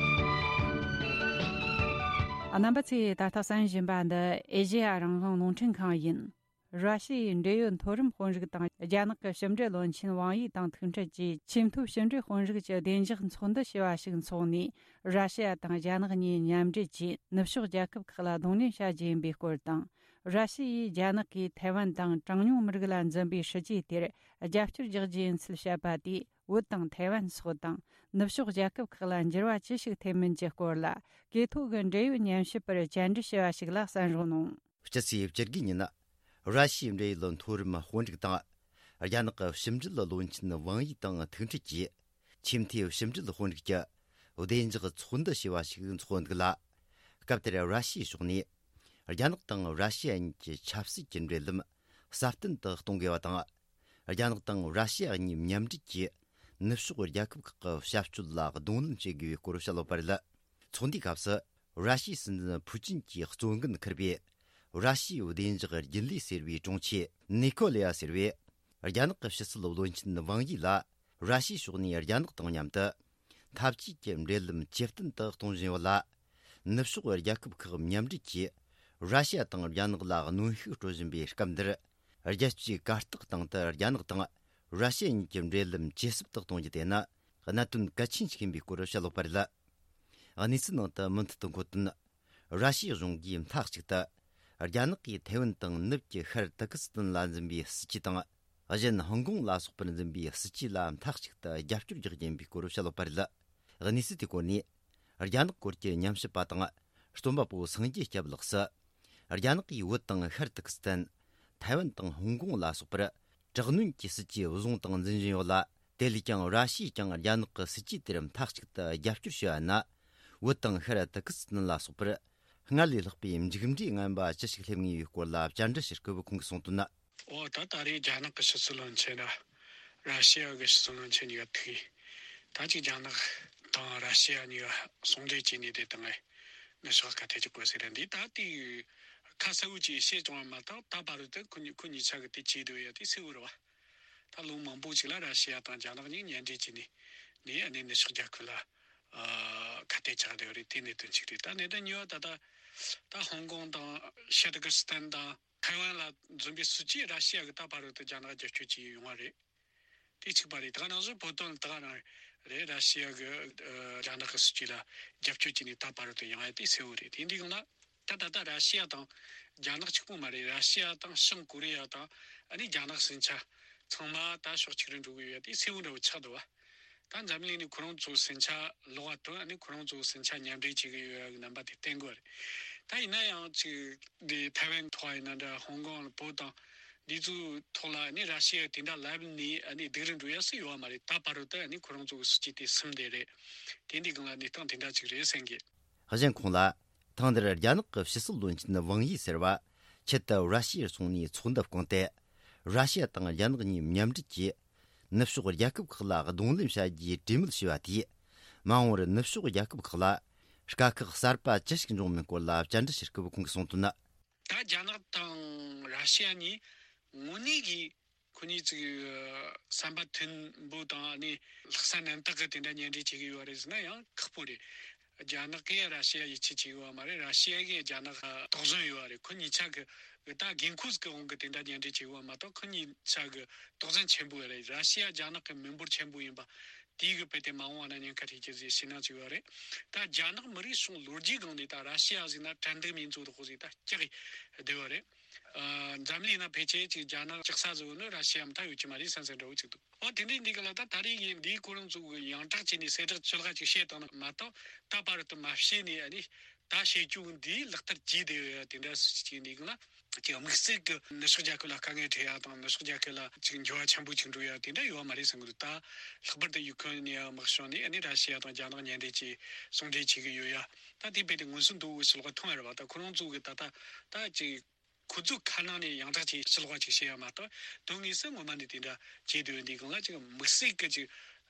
རྣམ་པ་ཚོས་ད་ལྟ་གསན་བཞིན་པ་འདི་ཨེ་ཤེ་ཡ་རང་དབང་རླུང་འཕྲིན་ཁང་ཡིན། ར་ཤི་ཡའི་འབྲེལ་ཡོད་མཐོ་རིམ་དཔོན་རིགས་དང་རྒྱ་ནག་གི་ཕྱི་འབྲེལ་བློན་ཆེན་ཝང་ཡི་དང་ཐུག་འཕྲད་ཀྱིས། ཆེས་མཐོའི་ཕྱི་འབྲེལ་དཔོན་རིགས་ཀྱི་བདེ་འཇགས་ཚོགས་འདུ་ཞེས་པ་ཞིག་འཚོགས་ནས། ར་ཤི་ཡ་དང་རྒྱ་ནག་གཉིས་མཉམ་འབྲེལ་གྱིས་ནུབ་ཕྱོགས་རྒྱལ་ཁབ་ཁག་ལ་གདོང་ལེན་བྱ་རྒྱུ་ཡིན་པའི་སྐོར་དང་། ར་ཤི་ཡས་རྒྱ་ནག་གིས་ཐའེ་ཝན་དང་གྲངས་ཉུང་མི་རིགས་ལ་འཛིན་པའི་སྲིད་ཇུས་དེར་རྒྱབ་སྐྱོར་རྒྱག་རྒྱུ་ཡིན་ཚུལ་བཤད་པ་དེས། བོད་དང་ཐའེ་ཝན་སོགས་དང་ནུབ་ཕྱོགས་རྒྱལ་ཁབ་ཁག་ལ་འགྱུར་བ་ཅི་ཞིག་ཐེབས་མིན་གྱི་སྐོར་ལ། གོ་ཐོས་ཀྱི་འབྲེལ་ཡོད་ཉན་ཞིབ་པར་བཅར་འདྲི་བྱས་པ་ཞིག་ལ་གསན་རོགས་གནང་། སྤྱི་ཚེས་བཅུ་དགུ་ཉིན། ར་ཤི་ཡའི་འབྲེལ་ཡོད་མཐོ་རིམ་དཔོན་རིགས་དང་། རྒྱ་ནག་གི་ཕྱི་འབྲེལ་བློན་ཆེན་ཝང་ཡི་དང་ཐུག་འཕྲད་ཀྱིས། ཆེས་མཐོའི་ཕྱི་འབྲེལ་དཔོན་རིགས་ཀྱི་བདེ་འཇགས་ཚོགས་འདུ་ཞེས་པ་ཞིག་འཚོགས་འདུག་ལ། སྐབས་དེར་ར་ཤི་ཡའི་ཕྱོགས་ནས། རྒྱ་ནག་དང་ར་ཤི་ཡ་གཉིས་ཀྱི་ཆབ་སྲིད་ཀྱི་འབྲེལ་ལམ་སྲ་བརྟན་དུ་གཏོང་དགོས་པ་དང་། རྒྱ་ནག་དང་ར་ཤི་ཡ་གཉིས་མཉམ་འབྲེལ་གྱིས་ནུབ་ཕྱོགས་རྒྱལ་ཁབ་ཁག་གི་ཞབས་ཞུ་ལ་གདོང་ལེན་བྱེད་དགོས་པའི་སྐོར་བཤད་ཡོད་པ་རེད། ཚོགས་འདུའི་སྐབས་སུ། ར་ཤི་ཡའི་སྲིད་འཛིན་ཕུའུ་ཅིན་གྱི་གཙོ་འགན་འཁུར་བའི་ར་ཤི་ཡའི་བདེ་འཇགས་རྒྱུན་ལས་ཟེར་བའི་དྲུང་ཆེ་ནི་ཀོ་ལེ་ཡ་ཟེར་བས། རྒྱ་ནག་གི་ཕྱི་སྲིད་བློན་ཆེན་ཝང་ཡི་ལ། ར་ཤི་ཡའི་ཕྱོགས་ནས་རྒྱ་ནག་དང་མཉམ་དུ་འཐབ་ཇུས་ཀྱི་འབྲེལ་ལམ་ཇེ་བརྟན་དུ་གཏོང་བཞིན་ཡོད་ལ། ནུབ་ཕྱོགས་རྒྱལ་ཁབ་ཁག་མཉམ་འབྲེལ་གྱིས་ར་ཤི་ཡ་དང་རྒྱ་ནག་ལ་གནོན་ཤུགས་སྤྲོད་བཞིན་པའི་སྐབས་འདིར། རྒྱལ་སྤྱིའི་གར་སྟེགས་སྟེང་དུ་རྒྱ་ནག་དང་ར་ཤི་ཡ་གཉིས་ཀྱི་འབྲེལ་ལམ་ཇེ་ཟབ་ཏུ་གཏོང་རྒྱུ་དེ་ནི་གནད་དོན་གལ་ཆེན་ཞིག་ཡིན་པའི་སྐོར་བཤད་ཡོད་པ་རེད། གནས་ཚུལ་ནང་དུ་མུ་མཐུད་དུ་འཁོད་དོན། ར་ཤི་ཡའི་གཞུང་གིས་མཐའ་གཅིག་ཏུ་རྒྱ་ནག་གིས་ཐའེ་ཝན་དང་ནུབ་ཀྱི་ཤར་ཏུར་ཀི་སི་ཐན་ལ་འཛིན་པའི་སྲིད་ཇུས་དང་། གཞན་ཧོང་ཀོང་ལ་སོགས་པར་འཛིན་པའི་སྲིད་ཇུས་ལ་མཐའ་གཅིག་ཏུ་རྒྱབ་སྐྱོར་རྒྱག་རྒྱུ་ཡིན་པའི་སྐོར་བཤད་ཡོད་པ་རེད། གནས་ཚུལ་དེའི་སྐོར་ནས་རྒྱ་ནག་སྐོར་གྱི་ཉམས་ཞིབ་པ་དང་རྩོམ་པ་པོ་སངས་རྒྱས་སྐྱབས་ལགས་སུ། རྒྱ་ནག་གིས་བོད་དང་ཤར་ཏུར་ཀི་སི་ཐན། ཐའེ་ཝན་དང་ཧོང་ཀོང་ལ་སོགས་པར་དྲག་གནོན་གྱི་སྲིད་ཇུས་བཟུང་དང་འཛིན་བཞིན་ཡོད་ལ། དེ་ལས་ཀྱང་ར་ཤི་ཡས་ཀྱང་རྒྱ་ནག་གི་སྲིད་ཇུས་དེར་མཐའ་གཅིག་ཏུ་རྒྱབ་སྐྱོར་བྱས་པ་ན། བོད་དང་ཤར་ཏུར་ཀི་སི་ཐན་ལ་སོགས་པར་སྔར་ལས་ལྷག་པའི་མཇུག་འབྲས་ངན་པ་ཅི་ཞིག་སླེབས་ངེས་པའི་སྐོར་ལ་བཅར་འདྲི་ཞུ་སྐབས་ཁོང་གིས་གསུངས་དོན། འོ་ད་ད་རེས་རྒྱ་ནག་གི་ཕྱི་སྲིད་བློན་ཆེན་དང་ར་ཤི་ཡ་གི་ཕྱི་སྲིད་བློན་ཆེན་གཉིས་ཀ་ཐུག་ཡིན། ད་ཅིག་རྒྱ་ནག་དང་ར་ཤི་ཡ་གཉིས་ཀ་ཟུང་འབྲེལ་བྱས་ནས་དེ་དང་ངས་ ནུབ་ཕྱོགས་ཁ་གཏད་གཅོག་པོ་ཟེར་ར་འདི་ད་དེ་ཁ་གསལ་བོ་ཅིག་བཤད་བྱུང་བ་མ་གཏོགས། ད་བར་དུ་ཁོ་གཉིས་ཁོ་གཉིས་ཆ་གི་དེ་བྱེད་འདོད་ཡ་དེ་གསལ་བོ་རེད་བ། ད་ལོ་མང་པོ་ཅིག་ལ་ར་ཤི་ཡ་དང་རྒྱ་ནག་གཉིས་མཉམ་འབྲེལ་བྱས་ནས་ནས་ཨ་ནི་ནུབ་ཕྱོགས་རྒྱལ་ཁབ་ལ་ཨ་ཁ་གཏད་བཅག་བསྡད་ཡོད་རེད། དེ་གནད་དོན་གཅིག་རེད། ད་གནད་དོན་གཉིས་པ་ད་ད་ད་ཧོང་ཀོང་དང་ཤ་ཏི་ཀིར་སི་ཐན་དང་ཐའེ་ཝན་ལ་འཛོམས་པའི་སྲིད་ཇུས་ར་ཤི་ཡ་གི་ད་བར་དུ་རྒྱ་ནག་རྒྱབ་སྐྱོར་བྱས་ཡོང་བ་རེད། དེ་གཅིག་པ་རེད། ད་ག་ནང་བཞིན་བོད་དོན་ད་ག་རང་རེད། ར་ཤི་ཡ་གི་ཨ་རྒྱ་ནག་གི་སྲིད་ཇུས་ལ་རྒྱབ་སྐྱོར་བྱས་ནས་ད་བར་དུ་ཡོང་ཡ་དེ་གསལ་བོ་རེད། དེ་འདི་གང་ལ། ད་ད་ལྟ་ར་ཤི་ཡ་དང་རྒྱ་ནག་གཅིག་པོ་མ་རེད། ར་ཤི་ཡ་དང་བྱང་ཀོ་རི་ཡ་དང་ཨ་ནི་རྒྱ་ནག་ཟིང་ཆ་ཚང་མ་ད་ཕྱོགས་གཅིག་རུ་འགྲོ་གི་ཡོད་དེ་གསལ་བོ་འདྲ་བོ་ཆགས་འདུག་བ། ད་འཛམ་གླིང་ནས་ཁོ་རང་ཚོ་ཟིང་ཆ་ལོག་པ་དང་ཨ་ནི་ཁོ་རང་ཚོ་ཟིང་ཆ་མཉམ་འབྲེལ་བྱེད་ཀྱི་ཡོད་ཡ་གི་རྣམ་པ་དེ་བསྟན་དགོས་རེད། ད་ཡིན་ན་ཡང་ཅིག་འདི་ཐའེ་ཝན་ཐོག་ཡིན་ན་འདྲ། ཧོང་ཀོང་བོད་དང་འདི་ཚོའི་ཐོག་ལ་ཨ་ནི་ར་ཤི་ཡ་དེ་འདྲ་ལབ་ནས་ཨ་ནི་སྡུག་རུ་འགྲོ་ཡ་སུ་ཡོད་བ་མ་རེད། ད་བར་དུ་ཨ་ནི་ཁོ་རང་ཚོ་གི་སྲིད་ཇུས་དེ་སིམ་བསྡད་རེད། དེ་འདི་སྒང་ལ་གནས་སྟངས་དེ་འདྲ་ཅིག་རེད་བསམ་གི། གཞན་ཁོང་ལ། ཐེངས་འདིར་རྒྱ་ནག་གི་ཕྱི་སྲིད་བློན་ཆེན་ཝང་ཡི་ཟེར་བ་ཆེད་དུ་ར་ཤི་ཡར་སོང་ནས་ཚོགས་འདུ་བསྐོངས་ཏེ། ར་ཤི་ཡ་དང་རྒྱ་ནག་གཉིས་མཉམ་འབྲེལ་གྱིས་ནུབ་ཕྱོགས་རྒྱལ་ཁབ་ཁག་ལ་གདོང་ལེན་བྱ་རྒྱུའི་གྲོས་མོལ་བྱས་པ་དེས། མ་འོངས་པར་ནུབ་ཕྱོགས་རྒྱལ་ཁབ་ཁག་ལ་དཀའ་ཁག་གསར་པ་ཅི་ཞིག་འབྱུང་མིན་སྐོར་ལ་བཅར་འདྲི་བྱེད་སྐབས་ཁོང་གིས་གསུངས་དོན། ད་རྒྱ་ནག་དང་ར་ཤི་ཡ་གཉིས་དངོས་གནས་ཀྱི་ཁོ་གཉིས་ཅིག་བསམ་པ་མཐུན་པོ་དང་ནི་ལྷག་བསམ་རྣམ་དག་གི་དེ་འདྲ་མཉམ་འབྲེལ་བྱེད་ཀྱི་ཡོད་རེད་ཟེར་ན་ཡང་ཁག་པོ་རེད། རྒྱ་ནག་གིས་ར་ཤི་ཡ་ཡིད་ཆེས་བྱེད་ཀྱི་ཡོད་མ་རེད། ར་ཤི་ཡ་གིས་རྒྱ་ནག་དོགས་ཟོན་ཡོད་རེད། ཁོ་གཉིས་ཆ་གི་ད་འགན་ཁུར་གི་དབང་གིས་དེ་འདྲ་མཉམ་འབྲེལ་བྱེད་ཀྱི་ཡོད་མ་གཏོགས། ཁོ་གཉིས་ཆ་གི་དོགས་ཟོན་ཆེན་པོ་རེད། ར་ཤི་ཡ་རྒྱ་ནག་གི་མི་འབོར་ཆེན་པོ་ཡིན་པ་དེའི་གི་དཔེ་དེ་མ་འོངས་པ་ན་ཉེན་ཁ་འཕྲད་རྒྱུ་ཟེར་ཞེད་སྣང་ཅིག་ཡོད་རེད། ད་རྒྱ་ནག་མི་རིགས་སོང་ལོ་རྒྱུས་སྒང་ནས་ད་ར་ཤི་ཡ་ཟིག་ན་དྲན་གདུང་མིན་ཚོ་དོག་ཟིག་ད་སྐྱག་གི་བསྡད་ཡོད་རེད། ཨ། འཛམ་གླིང་ན་ཕལ་ཆེར་ཅིག་རྒྱ་ནག་སྐྲག་ས་ཟིག་ནི་ར་ཤི་ཡ་མ་གཏོགས་ཡོད་ཀྱི་མ་རེད་བསམ་བསམ་འདྲ་བོ་ཅིག་འདུག། འོ་དེ་འདྲའི་འདི་ག་ལ་ད་ད་རེས་ཀྱི་འདིའི་ཁོ་རང་ཚོ་གི་ཡང་དག་བྱས་ནས་གསལ་བསྒྲགས་ཅི་ལ་ཅིག་བཤད་བཏང་ན་མ་གཏོགས། ད་བར་དུ་མ་བཤད་ནས་ཨ་ནི་ད་བཤད་རྒྱུ་འདི་ལག་བསྟར་བགྱིས་བསྡད་ཡོད་ཡ་དེ་འདྲ་སུ་ཅིག་འདི་ག་ལ་ཅིག་དམིགས་བསལ་གྱི་ནུབ་ཕྱོགས་རྒྱལ་ཁབ་ལ་དཀའ་ངལ་འཕྲད་ཡ་དང་ནུབ་ཕྱོགས་རྒྱལ་ཁབ་ལ་ཅིག་འགྱུར་བ་ཆེན་པོ་ཅིག་འགྲོ་ཡ་དེ་འདྲ་ཡོད་མ་རེད་བསམ་གི་འདུག། ད་ལྷག་པར་དུ་ཡུ་ཁུ་རེན་ནས་དམག་བྱུང་ནས་ཨ་ནི་ར་ཤི་ཡ་དང་རྒྱ་ནག་མཉམ་འབྲེལ་གྱིས་ཟུང་འབྲེལ་བྱེད་གི་ཡོད་ཡ། ད་དེ་རྦད་དེ་མངོན་སུམ་དུ་ཕྱི་ལོགས་མཐོང་ཡ་རེད་བ། ད་ཁོ་རང་ཚོ་གི་ད་ད་ད་ཅིག་ཁོ་ཚོའི་ཁ་ནང་ནས་ཡང་དག་ཅིག་ཕྱི་ལོགས་པ་ཅིག་བཤད་ཡ་མ་གཏོགས། དོན་དངོས་སུ་ངོ་མ་ནས་དེ་འདྲ་བྱེད་དུས་འདི་གང་ལ་ཅིག་དམིགས་བསལ་གྱི་ཅིག་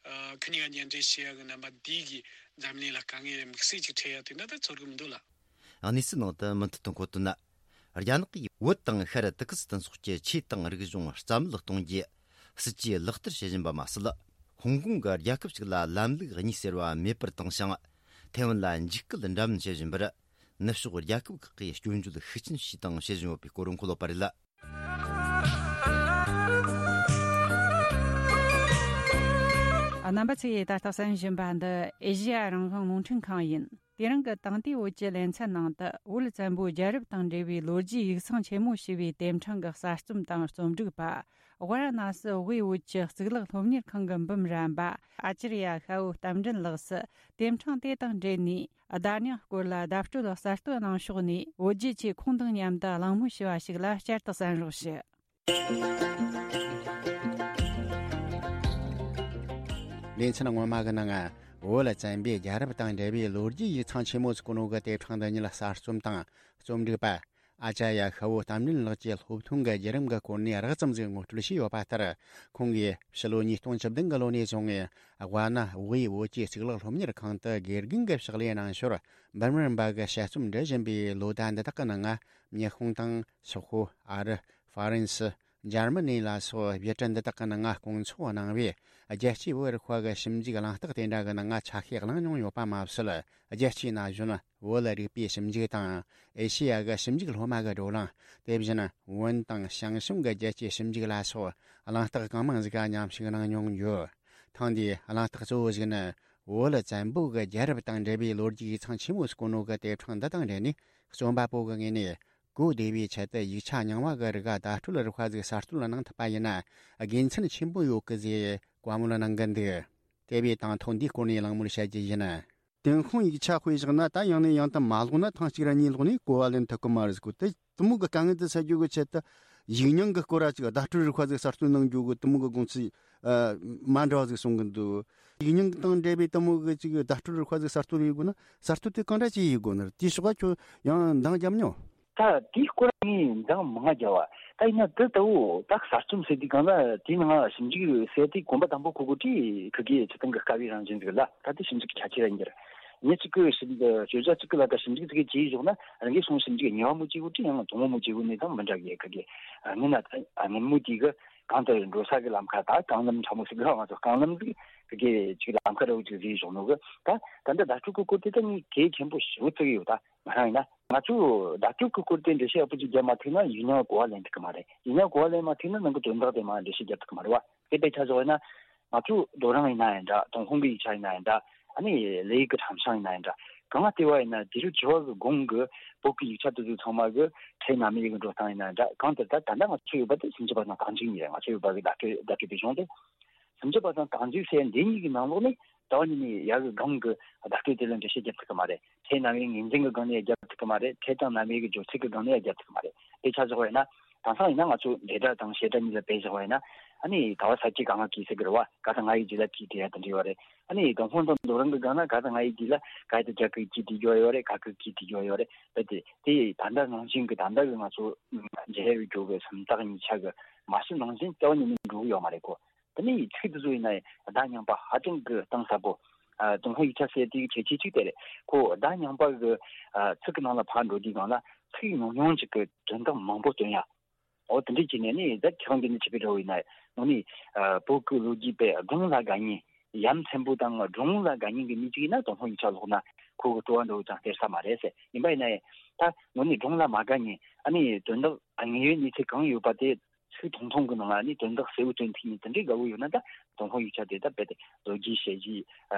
ཨ་ཁོ་གཉིས་ཀ་མཉམ་འབྲེལ་བྱེད་ཡ་གི་རྣམ་པ་འདི་གིས་འཛམ་གླིང་ལ་དཀའ་ངལ་དམིགས་བསལ་ཅིག་འཕྲད་ཡ་དེ་འདྲ་ད་ཚོར་གི་མི་འདུག་ལ། གནས་ཚུལ་ནང་དུ་མུ་མཐུད་དུ་འཁོད་དོན། རྒྱ་ནག་གིས་བོད་དང་ཤར་ཏུར་ཀི་སི་ཐན་སོགས་ཀྱི་ཆོས་དང་རིག་གཞུང་རྩ་མེད་གཏོང་རྒྱུ་སྲིད་ཇུས་ལག་བསྟར་བྱེད་བཞིན་པ་མ་ཟད། ཧོང་ཀོང་གི་རྒྱལ་ཁབ་ཅིག་ལ་ལམ་ལུགས་གཉིས་ཟེར་བ་མེད་པར་བཏང་ཞིང་། ཐའེ་ཝན་ལ་འཇིགས་སྐུལ་འདྲ་མིན་བྱེད་བཞིན་པར། ནུབ་ཕྱོགས་རྒྱལ་ཁབ་ཁག་གིས་སྐྱོན་བརྗོད་ཤུགས་ཆེན་བྱས་དང་བྱེད་བཞིན་ཡོད་པའི་སྐོར་འཁོད་ཡོད་པ་རེད། རྣམ་པ་ཚོས་ད་ལྟ་གསན་བཞིན་པ་འདི་ཨེ་ཤེ་ཡ་རང་དབང་རླུང་འཕྲིན་ཁང་ཡིན། དེ་རིང་གི་དེང་དུས་བོད་ཀྱི་ལེ་ཚན་ནང་དུ། བོད་བཙན་པོའི་རྒྱལ་རབས་དང་འབྲེལ་བའི་ལོ་རྒྱུས་ཡིག་ཚང་ཆེན་མོ་ཞེས་པའི་དེབ་འཕྲེང་གི་གསར་རྩོམ་དང་རྩོམ་སྒྲིག་པ། ཝཱ་ར་ཎ་སི་དབུས་བོད་ཀྱི་གཙུག་ལག་སློབ་གཉེར་ཁང་གི་འབུམ་རམས་པ་ཨ་ཅར་ཡ་ཤ་བོ་རྟ་མགྲིན་ལགས་སུ། དེབ་འཕྲེང་དེ་དང་འབྲེལ་ནས་བརྡ་རྙིང་སྐོར་ལ་བརྡ་སྤྲོད་གསར་གཏོད་གནང་ཕྱོགས་ནས། བོད་རྒྱུད་ཆེ་ཁོང་དང་མཉམ་དུ་གླེང་མོལ་ཞུ་བ་ཞིག་ལ་བསྐྱར་དུ་གསན་རོགས་ཞུ། ལེ་ཚན་སྔོན་མ་གི་ནང་། བོད་བཙན་པོའི་རྒྱལ་རབས་དང་འབྲེལ་བའི་ལོ་རྒྱུས་ཡིག་ཚང་ཆེན་མོ་ཟེར་གོ་ནོ་གི་དེབ་ཕྲེང་འདི་ཉིད་གསར་རྩོམ་དང་རྩོམ་སྒྲིག་པ་ཨ་ཅར་ཡ་ཤ་བོ་རྟ་མགྲིན་ལགས་ཀྱིས་སློབ་ཐོན་གྱི་བརྒྱུད་རིམ་གྱི་སྐོར་ནས་རགས་ཙམ་ཟིག་ངོ་སྤྲོད་བྱས་ཡོད་པ་ལྟར། ཁོང་གིས་ཕྱི་ལོ་ཉིས་སྟོང་བཅུ་བདུན་གྱི་ལོ་ནས་བཟུང་། ཝཱ་ཎ་དབུས་བོད་ཀྱི་གཙུག་ལག་སློབ་གཉེར་ཁང་དུ་དགེ་རྒན་གྱི་ཕྱག་ལས་གནང་ཞོར། འབུམ་རམས་པ་གི་དཔྱད་རྩོམ་འབྲི་བཞིན་པའི་ལོ་ཟླ་འདི་དག་གི་ནང་། ཉི་ཧོང་དང་སོག་པོ། ཨ་རི། ཧྥ་རན་སི། འཇར་མ་ནི་ལ་སོགས་བོད་འདི་དག་གི་ནང་སྐོང་ཚོགས་གནང་བས། རྒྱལ་སྤྱིའི་བོད་རིག་པ་གི་ཞིབ་འཇུག་གླེང་སྟེགས་དེ་འདྲ་གི་ནང་ཆ་ཤས་བླངས་མྱོང་ཡོད་པ་མ་ཟད། རྒྱལ་སྤྱིའི་ན་གཞོན་བོད་རིག་པའི་ཞིབ་འཇུག་དང་། ཨེ་ཤེ་ཡ་གི་ཞིབ་འཇུག་སློབ་མ་གི་བགྲོ་གླེང་། དེ་བཞིན་བོན་དང་ཞང་ཞུང་གི་རྒྱལ་སྤྱིའི་ཞིབ་འཇུག་ལ་སོགས་གླེང་སྟེགས་གང་མང་ཟིག་ག་མཉམ་ཞུགས་གནང་མྱོང་ཡོད། ཐེངས་འདིའི་གླེང་སྟེགས་གཙོ་བོ་ཞིག་ནི། བོད་བཙན་པོ་གི་རྒྱལ་རབས་དང་འབྲེལ་བའི་ལོ་རྒྱུས་ཡིག་ཚང་ཆེན་མོ་ཟེར་གོ་ནོ་གི་དེབ་ཕྲེང་འདི་དང་འབྲེལ་ནས། རྩོམ་པ་པོ་གི་ངོས་ནས། གོ་བདེ་བའི་ཆེད་དུ་ཡིག་ཆ་རྙིང་བ་གི་རིགས་བརྡ་སྤྲོད་རིག་པ་ཟིག་གསར་གཏོད་གནང་ཐུབ་པ་ཡིན་ན་དགེ་མཚན་ཆེན་པོ་ཡོད་གི་ཟེར་བཀའ་མོལ་གནང་གི་འདུག། དེ་བས་དང་ཐོག་འདིའི་སྐོར་ནས་གླེང་མོལ་བྱ་རྒྱུ་ཡིན། ཏུན་ཧོང་ཡིག་ཆ་དཔེ་བཞག་ན། ད་ཡང་ནས་ཡང་དུ་མ་ཀློག་ན་ཐེངས་གཅིག་ར་གཉིས་ཀློག་ནས་གོ་བ་ལེན་ཐུབ་གི་མ་རེད་ཟེར་གོ། དེ་དེ་མོ་གི་དཀའ་ངལ་དེ་སེལ་རྒྱུ་གི་ཆེད་དུ་ཡིག་རྙིང་གི་སྐོར་ར་ཅིག་བརྡ་སྤྲོད་རིག་པ་ཟིག་གསར་གཏོད་གནང་རྒྱུ་གི་དེ་མོ་གི་དགོངས་ཚུལ་མ་འདྲ་བ་ཟིག་གསུང་གི་འདུག། ཡིག་རྙིང་དང་འབྲེལ་བའི་དེ་མོ་གི་ཅིག་བརྡ་སྤྲོད་རིག་པ་ཟིག་གསར་གཏོད་ཡེད་དགོས་ན། གསར་གཏོད་དེ་གང་འདྲ་ཅིག་ཡེད་དགོས་ནི་རེད། དེའི་ཕྱོགས་ཁྱོད་ཡང་འདང་རྒྱབ་མྱོང་། ད་དེའི་སྐོར་ངས་འདང་མང་རྒྱབ་པ། ད་ཡིན་ན་དེ་ལྟ་བུ་ད་གསར་རྩོམ་ཟེར་དུས་སྒང་ལ་དེའི་ནང་ཞིབ་འཇུག་ཟེར་དུས་གོམ་པ་དང་པོ་ཁུར་དགོས་དུས་ཁུར་གི་སྤྱིར་བཏང་གི་དཀའ་བའི་རང་བཞིན་ཟིག་ལ། ད་དེ་ཞིབ་འཇུག་གི་ཁྱད་ཆོས་ར་ཡིན་རྒྱུ་རེད། མི་གཅིག་གིས་ཞིབ་འཇུག་བརྗོད་བྱ་གཅིག་གི་ལ་ད་ཞིབ་འཇུག་ཅིག་བྱས་བཞག་ན་རང་གིས་སོང་ཞིབ་འཇུག་གཉིས་པ་མོ་བྱེད་དགོས་དྲི་ཡང་དང་པོ་མོ་བྱེད་དགོས་ནས་དང་མི་འདྲ་གི་ག་གི་ཨ་ངན་ན་ད་ཨ་ངན་མོ་དེ་གི་གང་ལྟར་འགྲོ་ས་གི་ལམ་ཁ་ད་རྐང་ལམ་ཕྲ་མོ་ཟེར་གི་ར་ང་ཚོ་རྐང་ལམ་གི་གི་ཅིག་ལམ་ཁ་ར་བོ་ཅིག་བཟོས་བཞག་ནོ་གི་ད་ད་ལྟ་བརྡ་སྤྲོད་ཀྱི་སྐོར་དེ་ད་ངས་གལ་ཆེན་པོ་ཞེ་པོ་བརྩི་གི་ཡོད། ད་ང་རང་ཡིན་ན་ང་ཚོས་བརྡ་སྤྲོད་ཀྱི་སྐོར་དེ་འགྲེལ་བཤད་ཡག་པོ་ཅིག་བརྒྱབ་མ་ཐུབ་ན་ཡིག་རྙིང་གོ་བ་ལེན་ཐུབ་ཀྱི་མ་རེད། ཡིག་རྙིང་གོ་བ་ལེན་མ་ཐུབ་ན་ནང་གི་དོན་དག་དེ་མར་འགྲེལ་བཤད་རྒྱབ་ཐུབ་ཀྱི་མ་རེད་བ། དེ་དཔེ་ཆ་བཞག་ཡིན་ན་ང་ཚོའི་རྡོ་རིང་ཡིན་ན་ཡང་འདྲ། ཏུན་ཧོང་གི་ཡིག་ཆ་ཡིན་ན་ཡང་འདྲ། ཨ་ནི་ལི་ཡུལ་གི་ཁྲམ་ཤིང་ཡིན་ན་ཡང་འདྲ། གང་ལ་བལྟས་པ་ཡིན་ན་དུས་རབས་བཅུ་བ་གི་གོང་གི་བོད་ཀྱི་ཡིག་ཆ་དེ་ཚོ་ཚང་མ་གི་ཕྲད་རྣམ་དབྱེ་གི་འགྲོ་སྟངས་ཡིན་ན་ཡང་འདྲ། གང་ལྟར་ད་ད་ལྟ་ང་ཚོ་ཡོད་པ་དེ་སུམ་ཅུ་པ་དང་རྟགས་འཇུག་གཉིས་རེད། ང་ཚོ་ཡོད་པ་གི་བརྡ་སྤྲོད་བརྡ་སྤྲོད་པའི་གཞུང་དེ། སུམ་ཅུ་པ་དང་རྟགས་འཇུག་ཟེར་འདི་གཉིས་ཀྱི་ནང་ལོགས་ནས་ད་བ་ཉིད་ནས་ཡ་གི་སྒང་གི་བརྡ་སྤྲོད་དེ་ལ་འགྲེལ་བཤད་རྒྱབ་ཐུབ་ཀྱི་མ་རེད། ཕྲད་རྣམ་དབྱེ་ངོས་འཛིན་གྱི་སྒང་ནས་ཡང་རྒྱབ་ཐུབ་ཀྱི་མ་རེད། ཕྲད་དང་རྣམ་དབྱེ་གི་སྦྱོར་ཚུལ་གྱི་སྒང་ནས་ཡང་རྒྱབ་ཐུབ་ཀྱི་མ་རེད། དཔེ་ཆ་བཞག་པ་ཡིན་ན། དེང་སང་ཡིན་ན་ང་ཚོ་འབྲེལ་སྒྲ་དང་བྱེད་སྒྲ་གཉིས་ལ་དཔེ་བཞག་པ་ཡིན་ན། ཨ་ནི་ག་བ་ས་ཀྱི་ག་ང་གི་ཟེར་གི་རེད་བ། ག་དང་ང་ཡི་རྗེས་ལ་གི་དེ་ཡ་དེ་འདྲ་ཡོད་རེད། ཨ་ནི་ཏུན་ཧོང་དང་རྡོ་རིང་གི་སྒང་ན་ག་དང་ང་ཡི་རྗེས་ལ་ག་ཡི་དེ་རྒྱ་གི་གི་དེ་འགྱོ་ཡོད་རེད། ག་གི་གི་དེ་འགྱོ་ཡོད་རེད། རྦད་དེ་དེ་ད་ལྟ་ནང་བཞིན་གི་ད་ལྟ་གི་ང་ཚོ་མཇལ་ཡོད་རྒྱུ་གི་སུམ་རྟགས་གཉིས་ཆ་གི་མ་ཕྱི་ནང་བཞིན་རྩ་བ་ཉིད་ནས་འགྲོ་གི་ཡོད་མ་རེད་གོ། དེ་ནས་ཚིག་དེ་ཚོ་ཡིན་ན་བརྡ་རྙིང་པ་ཧ་ཅང་གི་གཏིང་ཟབ་པོ། ཨ། ཏུན་ཧོང་ཡིག་ཆ་ཟེར་དེའི་ཁྱད་ཆོས་གཅིག་དེ་རེད། ཁོ་བརྡ་རྙིང་པ་གི་ཨ་ཚིག་གི་ནང་ལ་ཕར་འགྲོ་དུས་སྒང་ལ་ཚིག་ཉུང་ཉུང་ཅིག་གི་དོན་དག་མང་པོ་སྟོན་ཡ། འོ་དེ་འདྲས་བྱས་ནས་ནི་ད་ཁྱེད་རང་འདི་ནས་བྱས་པའི་འདྲ་བོ་ཡིན་ན་ནི་ཨ་བོད་ཀྱི་ལོ་རྒྱུས་པའི་སྒྲུང་ལ་དགའ་མཁན། ཡ་མཚན་པོ་དང་སྒྲུང་ལ་དགའ་མཁན་གྱི་མི་གཅིག་ཡིན་ན་ཏུན་ཧོང་ཡིག་ཆ་ཀློག་ན་ཁོ་གི་སྤྲོ་བ་འདྲ་བོ་ཅང་སྟེར་ས་མ་རེད་ཟེར། ཡིན་པ་ཡིན་ན་ཡང་ད་ནི་སྒྲུང་ལ་མ་དགའ་མཁན། ཨ་ནི་དོན་དག་དངོས་ཡོད་གནས་ཚུལ་གང་ཡོད་པ་དེ། ཚིག་ཐུང་ཐུང་གི་ནང་ལ་ནི་དོན་དག་གསལ་བོ་སྟོན་ཐུབ་མཁན་དེ་འདྲའི་དགའ་བོ་ཡོད་ན་ད་ཏུན་ཧོང་ཡིག་ཆ་དེ་ད་རྦད་དེ་ལོ་རྒྱུས་དཔྱད་གཞི་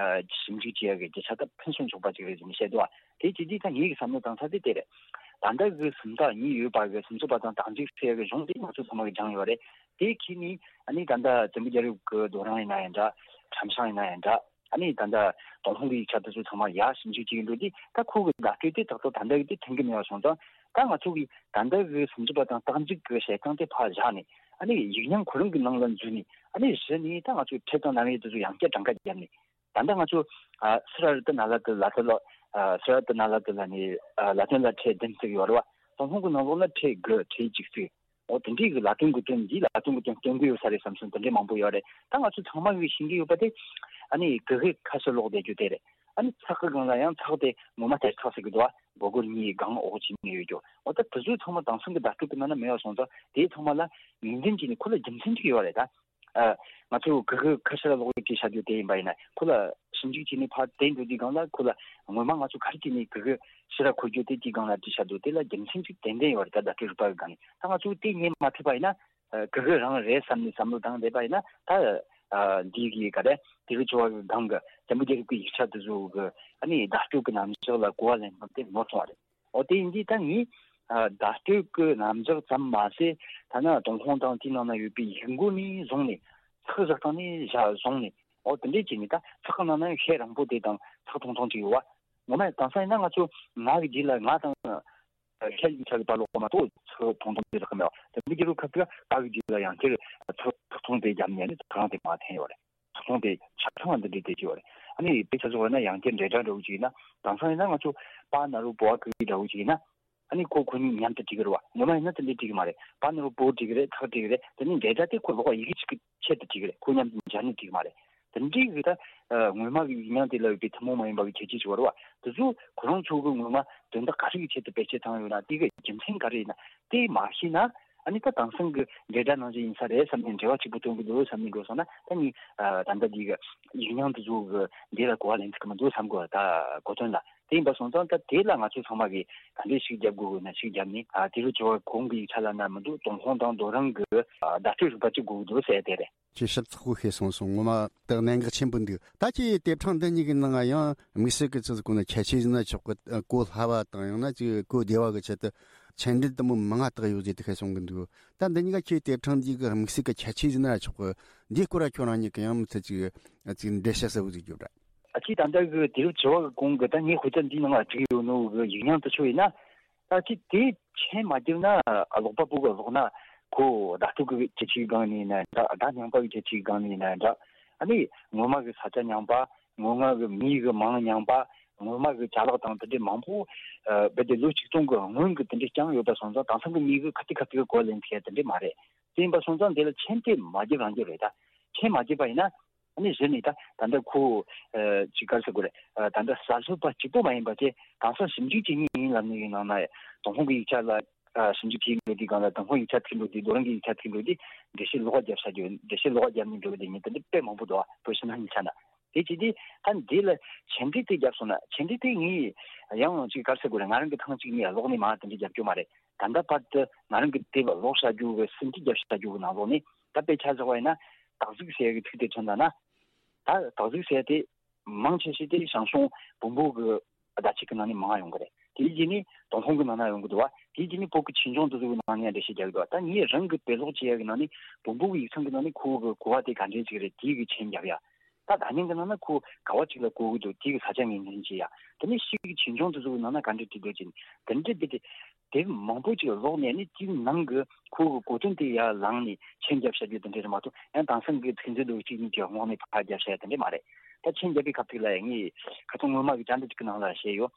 ཞིབ་འཇུག་བྱེད་ཡག་གི་རྒྱུ་ཆ་ད་ཕུན་སུམ་ཚོགས་པ་ཅིག་རེད་ཟེར་ནས་བཤད་འདུག་བ། དེ་བྱེད་དུས་ད་ངེད་ཀྱི་བསམ་བློ་བཏང་ས་དེ་དེ་རེད། ད་ལྟ་གི་སུམ་རྟགས་གཉིས་ཡོད་པ་གི་སུམ་ཅུ་པ་དང་རྟགས་འཇུག་ཟེར་ཡག་གི་གཞུང་དེ་ང་ཚོ་ཚང་མ་གིས་སྦྱངས་ཡོད་རེད། དེ་ཁྱེད་ནི་ཨ་ནི་ད་ལྟ་བཙན་པོ་རྒྱལ་རབས་ཀྱི་རྡོ་རིང་ཡིན་ན་ཡང་འདྲ། ཁྲམ་ཤིང་ཡིན་ན་ཡང་འདྲ། ཨ་ནི་ད་ལྟ་ཏུན་ཧོང་གི་ཡིག་ཆ་དེ་ཚོ་ཚང་མ་ཡར་ཞིབ་འཇུག་བྱེད་ཀྱི་འགྲོ་དུས་ད་ཁོ་གི་བརྡ་སྤྲོད་དེ་ཏག་ཏག་ད་ལྟ་གི་དེ་མཐུན་གྱི་མེད་པ་སོང་ཙང་། ད་ང་ཚོ་གིས་ད་ལྟ་གི་སུམ་ཅུ་པ་དང་རྟགས་འཇུག་གི་བྱེད་སྟངས་དེ་ཕར་བཞག་ནས། ཨ་ནི་ཡིག་རྙིང་ཁོ་རང་གི་ནང་ལ་འཛུལ་ནས། ཨ་ནི་གཞི་ནས་ད་ང་ཚོ་ཕྲད་དང་རྣམ་དབྱེ་དེ་ཚོ་ཡང་བསྐྱར་གྲངས་ཀ་བརྒྱབ་ནས། ད་ལྟ་ང་ཚོ་ཨ་སི་ར་རི་ཏི་ན་ལ་ཏི་ལ་ཏི་ལ། ཨ་སི་ར་རི་ཏི་ན་ལ་ཏི་ལ་ནས་ཨ་ལ་དོན་ལ་ཕྲད་བདུན་བརྩི་གི་ཡོད་རེད་བ། ཏུན་ཧོང་གི་ནང་ལོགས་ལ་ཕྲད་དགུ་ཕྲད་གཅིག་བརྩི། འོ་དེ་འདྲའི་གི་ལ་དོན་གི་དོན་འདི་ལ་དོན་གི་དོན་སྟོན་གི་ཡོད་ས་རེད་བསམ་སོང་། དེ་འདྲའི་མང་པོ་ཡོད་རེད། ད་ང་ཚོ་ཚང་མ་གི་ཤེས་ཀྱི་ཡོད་པ་དེ། ཨ་ནི་གི་གུ་ཁ་ཤས་ཀློག་བསྡད་རྒྱུ་དེ་རེད། ཨ་ནི་ཚེག་གི་སྒང་ལ་ཡང་ཚེག་དེ་ངོ་མ་དེར་ཚེག་ཟེར་གི་འདུག་བ། སྒོར་སྒོར་གཉིས་སྒང་འོག་གཅིག་གཉིས་ཡོད་རྒྱུ། འོ་ད་དེ་ཚོ་ཚང་མ་དེང་སང་གི་བརྡ་སྤྲོད་གི་ནང་ན་མེད་པ་སོང་ཙང་དེ་ཚང་མ་ལ་ངོས་འཛིན་བྱས་ནས་ཁོ་ལ་རྒྱུ་མཚན་ཅིག་ཡོད་རེད་ད། ཨ་ང་ཚོ་གི་གུ་ཁ་ཤས་ལ་ཀློག་ཡིག་བྲིས་བཞག་རྒྱུ་དེ་ཡིན་པ་ཡིན་ན་ཁོ་ལ་ཞིབ་འཇུག་བྱས་ནས་ཕར་བསྟན་འགྲོ་དུས་སྒང་ལ་ཁོ་ལ་ངོ་མ་ང་ཚོ་ག་རེ་བྱས་ནས་གི་གུ་ཕྱི་ར་འཁོར་རྒྱུ་དེ་དེའི་སྒང་ལ་བྲིས་བཞག་འདུག་དེ་ལ་རྒྱུ་མཚན་ཅིག་ཏན་ཏན་ཡོད་རེད། ད་བརྡ་སྤྲོད་རིག་པ་གི་སྒང་ནས་ད་ང་ཚོ་དེ་རྙེད་མ་ཐུབ་པ་ཡིན་ན། ཨ་གི་གུ་རང་རེད་བསམ་ནས་བསམ་བློ་བཏང་བསྡད་པ་ཡིན་ན་ད། ཨ་འདི་གི་ག་རེ་དུས་རབས་བཅུ་བ་གི་སྒང་གི་བཙན་པོ་རྒྱལ་རབས་ཀྱི་ཡིག་ཆ་དེ་ཚོ་གི་ཨ་ནི་བརྡ་སྤྲོད་ཀྱི་རྣམ་གཞག་ལ་གོ་བ་ལེན་སྟངས་དེ་ནོར་སོང་བ་རེད། འོ་དེ་ཡིན་དུས་ད་ངས་ཨ་བརྡ་སྤྲོད་ཀྱི་རྣམ་གཞག་ཙམ་མ་ཟད། ཐ་ན་ཏུན་ཧོང་དང་དེའི་ནང་ན་ཡོད་པའི་ཡིག་མགོ་ནས་བཟུང་ནས་ཚེག་བཞག་སྟངས་ནས་བཞག་བཟུང་ནས། འོ་དེ་འདྲས་བྱས་ནས་ད་ཚེག་གི་ནང་ན་ཡང་ཤད་རིང་པོ་དེ་དང་ཚེག་ཐུང་ཐུང་ཅིག་ཡོད་བ། ངོ་མ་དེང་སང་ཡིན་ན་ང་ཚོ་ང་གི་རྗེས་ལ་ང་དང་ཤད་ཡིག་ཆ་གི་བར་ལོགས་མ་གཏོགས་ཚེག་ཐུང་ཐུང་དེ་རག་གི་མེད་བ། དེ་འདྲ་གི་རུ་ཁ་ཐུག་ག་གི་རྗེས་ལ་ཡང་དེར་ཚེག་ཐུང་དེ་བརྒྱབ་ནས་ནི་ཐང་དེ་མ་འཐེན་ཡོད་རེད། ཚོགས་ཆུང་དེ་ཆ་ཚང་བ་འདི་འདྲའི་དེ་ཅི་བ་རེད། ཨ་ནི་དཔེ་ཆ་བཟོ་བ་ན་ཡང་བསྐྱར་འབྲེལ་སྒྲ་འདྲ་བོ་ཅིག་ཡིན་ན། དེང་སང་ཡིན་ན་ང་ཚོ་པ་ན་རོ་པོ་བ་གི་འདྲ་བོ་ཅིག་ཡིན་ན། ཨ་ནི་ཁོ་ཁོ་གཉིས་མཉམ་དུ་བྲིས་གི་རེད་བ། ངོ་མ་ཡིན་ན་དེ་འདྲའི་བྲིས་གི་མ་རེད། པ་ན་རོ་པོ་བྲིས་གི་རེད། ཐག་བྲིས་གི་རེད། དེ་ནི་འབྲེལ་སྒྲ་དེ་ཁོ་ལོགས་ཡི་གེ་གཅིག་གི་ཆེད་དུ་བྲིས་གི་རེད། ཁོ་མཉམ་དུ་སྦྱར་ནས་བྲིས་གི་མ་རེད། དེ་འདྲའི་གི་ད་ངོ་མ་གི་ཡིག་རྙིང་དེ་ལ་ཡོད་པའི་ཐུན་མོང་མ་ཡིན་པ་གི་ཁྱད་ཆོས་ཅིག་ཡོད་རེད་བ། དེ་ཚོ་ཁོ་རང་ཚོ་གི་ངོ་མ་དོན་དག་ག་རེ་གི་ཆེད་དུ་བེད་སྤྱོད་བཏང་ཡོད་ན་དེ་གི་རྒྱུ་མཚན་ག་རེ་ཡིན་ན། དེ་མ་ཤེས་ན། ཨ་ནི་ད་དེང་སང་གི་འབྲེལ་སྒྲ་ནང་བཞིན་ཡིན་ས་རེད་བསམ་ནས་འབྲེལ་བ་གཅིག་པུ་སྟོན་གི་འདུག་བསམ་ནས་འགྲོ་སོང་ན། ད་ནི་ཨ་ད་ལྟ་འདི་གི་ཡིག་རྙིང་དེ་ཚོ་གི་འདི་ལ་གོ་བ་ལེན་ཐུབ་ཀྱི་མི་འདུག་བསམ་གི། ད་གོ་དོན་ལ་དེ་ཡིན་པ་སོང་ཙང་། ད་དེ་ལ་ང་ཚོ་ཚང་མ་གིས་ག་འདྲས་ཤིག་རྒྱབ་དགོས་དགོས་ན་ཤིག་རྒྱབ་ནས། ཨ་དེ་རུ་བྱ་བ་གོང་གི་ཡིག་ཆ་ལ་ན་མི་འདུག་ཏུན་ཧོང་དང་རྡོ་རིང་གི་ཨ་བརྡ་སྤྲོད་རིག་པ་གཅིག་དགོས་ཀྱི་འདུག་ཟེར་དེ་རེད། ཁྱེད་ཞིབ་ཚགས་པོ་ཤེས་སོང་སོང་། ངོ་མ་དག་གནད་འགག་ཆེན་པོ་འདུག་ད་ཁྱེད་དེབ་ཕྲེང་འདི་གཉིས་ཀྱི་ནང་ཡང་དམིགས་བསལ་གྱི་ཚིག་གོ་ན་ཁྱད་ཆོས་ཟིན་ན་ཆོག་གི། གོ་སླ་བ་དང་ཡང་ན་ཅིག་གོ་བདེ་བ་གི་ཆེད་དུ་མཆན་འགྲེལ་དུ་མོ་མང་ང་དག་ཡོད་ཟེར་དུ་ཤེས་སོང་གི་འདུག་ད་འདི་གཉིས་ཀ་ཁྱེད་དེབ་ཕྲེང་འདི་གི་དམིགས་བསལ་གྱི་ཁྱད་ཆོས་ཟིན་ན་ཆོག་གི། འདིའི་སྐོར་ལ་ཁྱོད་རང་ཉིད་ཀྱི་ཡང་མི་ཚེ་ཅིག་ཅིག་འགྲེལ་བཤད་གསལ་བོ་ཟིག་རྒྱོབ་ར། ཨ་ཅིག་ད་ལྟ་གི་དུས་རབས་བཅུ་བ་གི་གོང་གི་ད་ངས་དཔེ་ཆ་འདིའི་ནང་ལ་བྲིས་ཡོད་ནོ་གི་ཡིག་རྙིང་དེ་ཚོ་ཡིན་ན། ད་ཅིག་དེ་མཆན་མ་བརྒྱབ་ན། ཀློག་པ་པོ་གི་ཀློག་ན་ཁོ་བརྡ་སྤྲོད་ཀྱི་ཁྱད་ཆོས་སྒང་ནས་ཡིན་ན་འདྲ། བརྡ་རྙིང་པ་གི་ཁྱད་ཆོས་སྒང་ནས་ཡིན་ན་འདྲ། ཨ་ནི་སྔོན་མ་གི་ས་ཆ་རྙིང་པ། སྔོན་མ་གི་མི་གི་མིང་རྙིང་པ། སྔོན་མ་གི་ཅ་ལག་དང་དེ་འདྲའི་མང་པོ། ཨ་རྦད་དེ་ལོ་ཆིག་སྟོང་གི་སྔོན་གྱི་དེ་འདྲའི་རྐྱང་ཡོད་པ་སོང་ཙང་། དེང་སང་གི་མི་གིས་ཁ་ཐུག་ཁ་ཐུག་གི་གོ་ལེན་ཐུབ་ཡ་དེ་འདྲའི་མ་རེད། དེ་ཡིན་པ་སོང་ཙང་དེ་ལ་མཆན་དེ་མ་བརྒྱབ་རང་རྒྱབ་རེད། ད་མཆན་མ་བརྒྱབ་པ་ཡིན་ན། ཨ་ནི་གཞི་ནས་ད་ད་ལྟ་ཁོ་ཅིག་ག་རེ་ཟེར་དགོས་རེད། ད་ལྟ་གསར་གསོ་པ་གཅིག་པོ་མ་ཡིན་པ་དེ་གང་ཟག་ཞིབ་འཇུག་བྱེད་མཁན་ཡིན་ལབ་ནས་ཡིན་ནང་ན་ཏུན་ཧོང་གི་ཡིག་ཆ་ལ་ཞིབ་འཇུག་བྱེད་འགྲོ་དུས་སྒང་ལ་ཏུན་ཧོང་ཡིག་ཆ་ཁྲིད་འགྲོ་དུས་རྡོ་རིང་གི་ཡིག་ཆ་ཁྲིད་འགྲོ་དུས་འགྲེལ་བཤད་ལོགས་ཀ་བརྒྱབ་བྱ་རྒྱུ། འགྲེལ་བཤད་ལོགས་ཀ་བརྒྱབ་ནས་འགྲོ་གི་དེ་ཉིད་དེ་འདྲ་དཔེ་མང་པོ་འདུག་བ། བོད་ཕྱི་ནང་གཉིས་ཆ་ན། དེ་བྱས་དུས་ད་འདི་ལ་ཆེད་འབྲེལ་དེ་བརྒྱབ་སོང་ན། ཆེད་འབྲེལ་དེ་ངས་ཡང་ཅིག་ག་རེ་ཟེར་དགོས་རེད། ང་རང་གི་ཐེངས་གཅིག་གཉིས་ཀློག་ནས་མར་དེ་འདྲ་རྒྱབ་རྒྱུ་མ་རེད། ད་ལྟ་བར་དུ་ང་རང་གི་དེབ་ཀློག་བྱ་རྒྱུ་གི་ཟིན་བྲིས་རྒྱབ་བྱ་རྒྱུ་གི་ནང་ལོགས་ནས་ད་དཔེ་ཆ་བཞག་པ་ཡིན་ན། སྟག་གཟིག་ཟེར་ཡ་གི་ཚིག་དེ་ཐོན་ད་ན། ད་སྟག་གཟིག་ཟེར་ཡ་དེ་མང་ཆེ་ཤོས་དེ་ཞང་ཞུང་བོན་པོ་གི་བརྡ་ཆད་ཀྱི་ནང་ནས་མང་ཡོང་གི་རེད། དེའི་རྗེས་ནས་ཏུན་ཧོང་གི་ནང་ན་ཡོང་གི་འདུག་བ། དེའི་རྗེས་ནས་བོད་ཀྱི་ཆོས་འབྱུང་དེ་ཚོ་གི་ནང་ནས་འགྲེལ་བཤད་རྒྱག་གི་འདུག་ད་ངས་རང་གི་དཔེ་ཀློག་བྱེད་ཡ་གི་ནང་ནས་བོན་པོ་གི་ཡིག་ཚང་གི་ནང་ནས་ཁོ་བོ་གི་གོ་བ་དེ་ག་འདྲས་ཅིག་རེད། དེའི་གི་མཆན་རྒྱབ་ཡ། ད་ད་ཉན་གི་ནང་ན་ཁོ་ག་བ་ཅིག་ལ་གོ་གི་འདུག་དེའི་གི་ས་ཆ་ངོས་འཛིན་བྱེད་ཡ། དེ་ནས་ཕྱིས་ཀྱི་ཆོས་འབྱུང་དེ་ཚོ་གི་ནང་ན་ག་འདྲས་བྲིས་འདུག་ཅིང་། དེ་འདྲས་དེ་དེ་དེབ་མང་པོ་ཅིག་ཀློག་ནས་ནི་དེའི་ནང་གི་ཁོ་གི་གོ་དོན་དེ་ཡར་བླངས་ནས་མཆན་རྒྱབ་བྱ་རྒྱུ་དེ་འདྲས་རེད་མ་གཏོགས། ཡང་དེང་སང་གི་ཚིག་མཛོད་འདུག་གཅིག་གཉིས་ཀྱི་ངོགས་ནས་ཕར་རྒྱབ་བྱ་ཡ་དེ་འདྲས་མ་རེད། ད་མཆན་རྒྱབ་པའི་སྐབས་དེ་ལ་ངས་ཁ་སང་སྔོན་མ་གི་བཅར་འདྲི་ཅིག་གི་ནང་ལ་བཤད་ཡོད།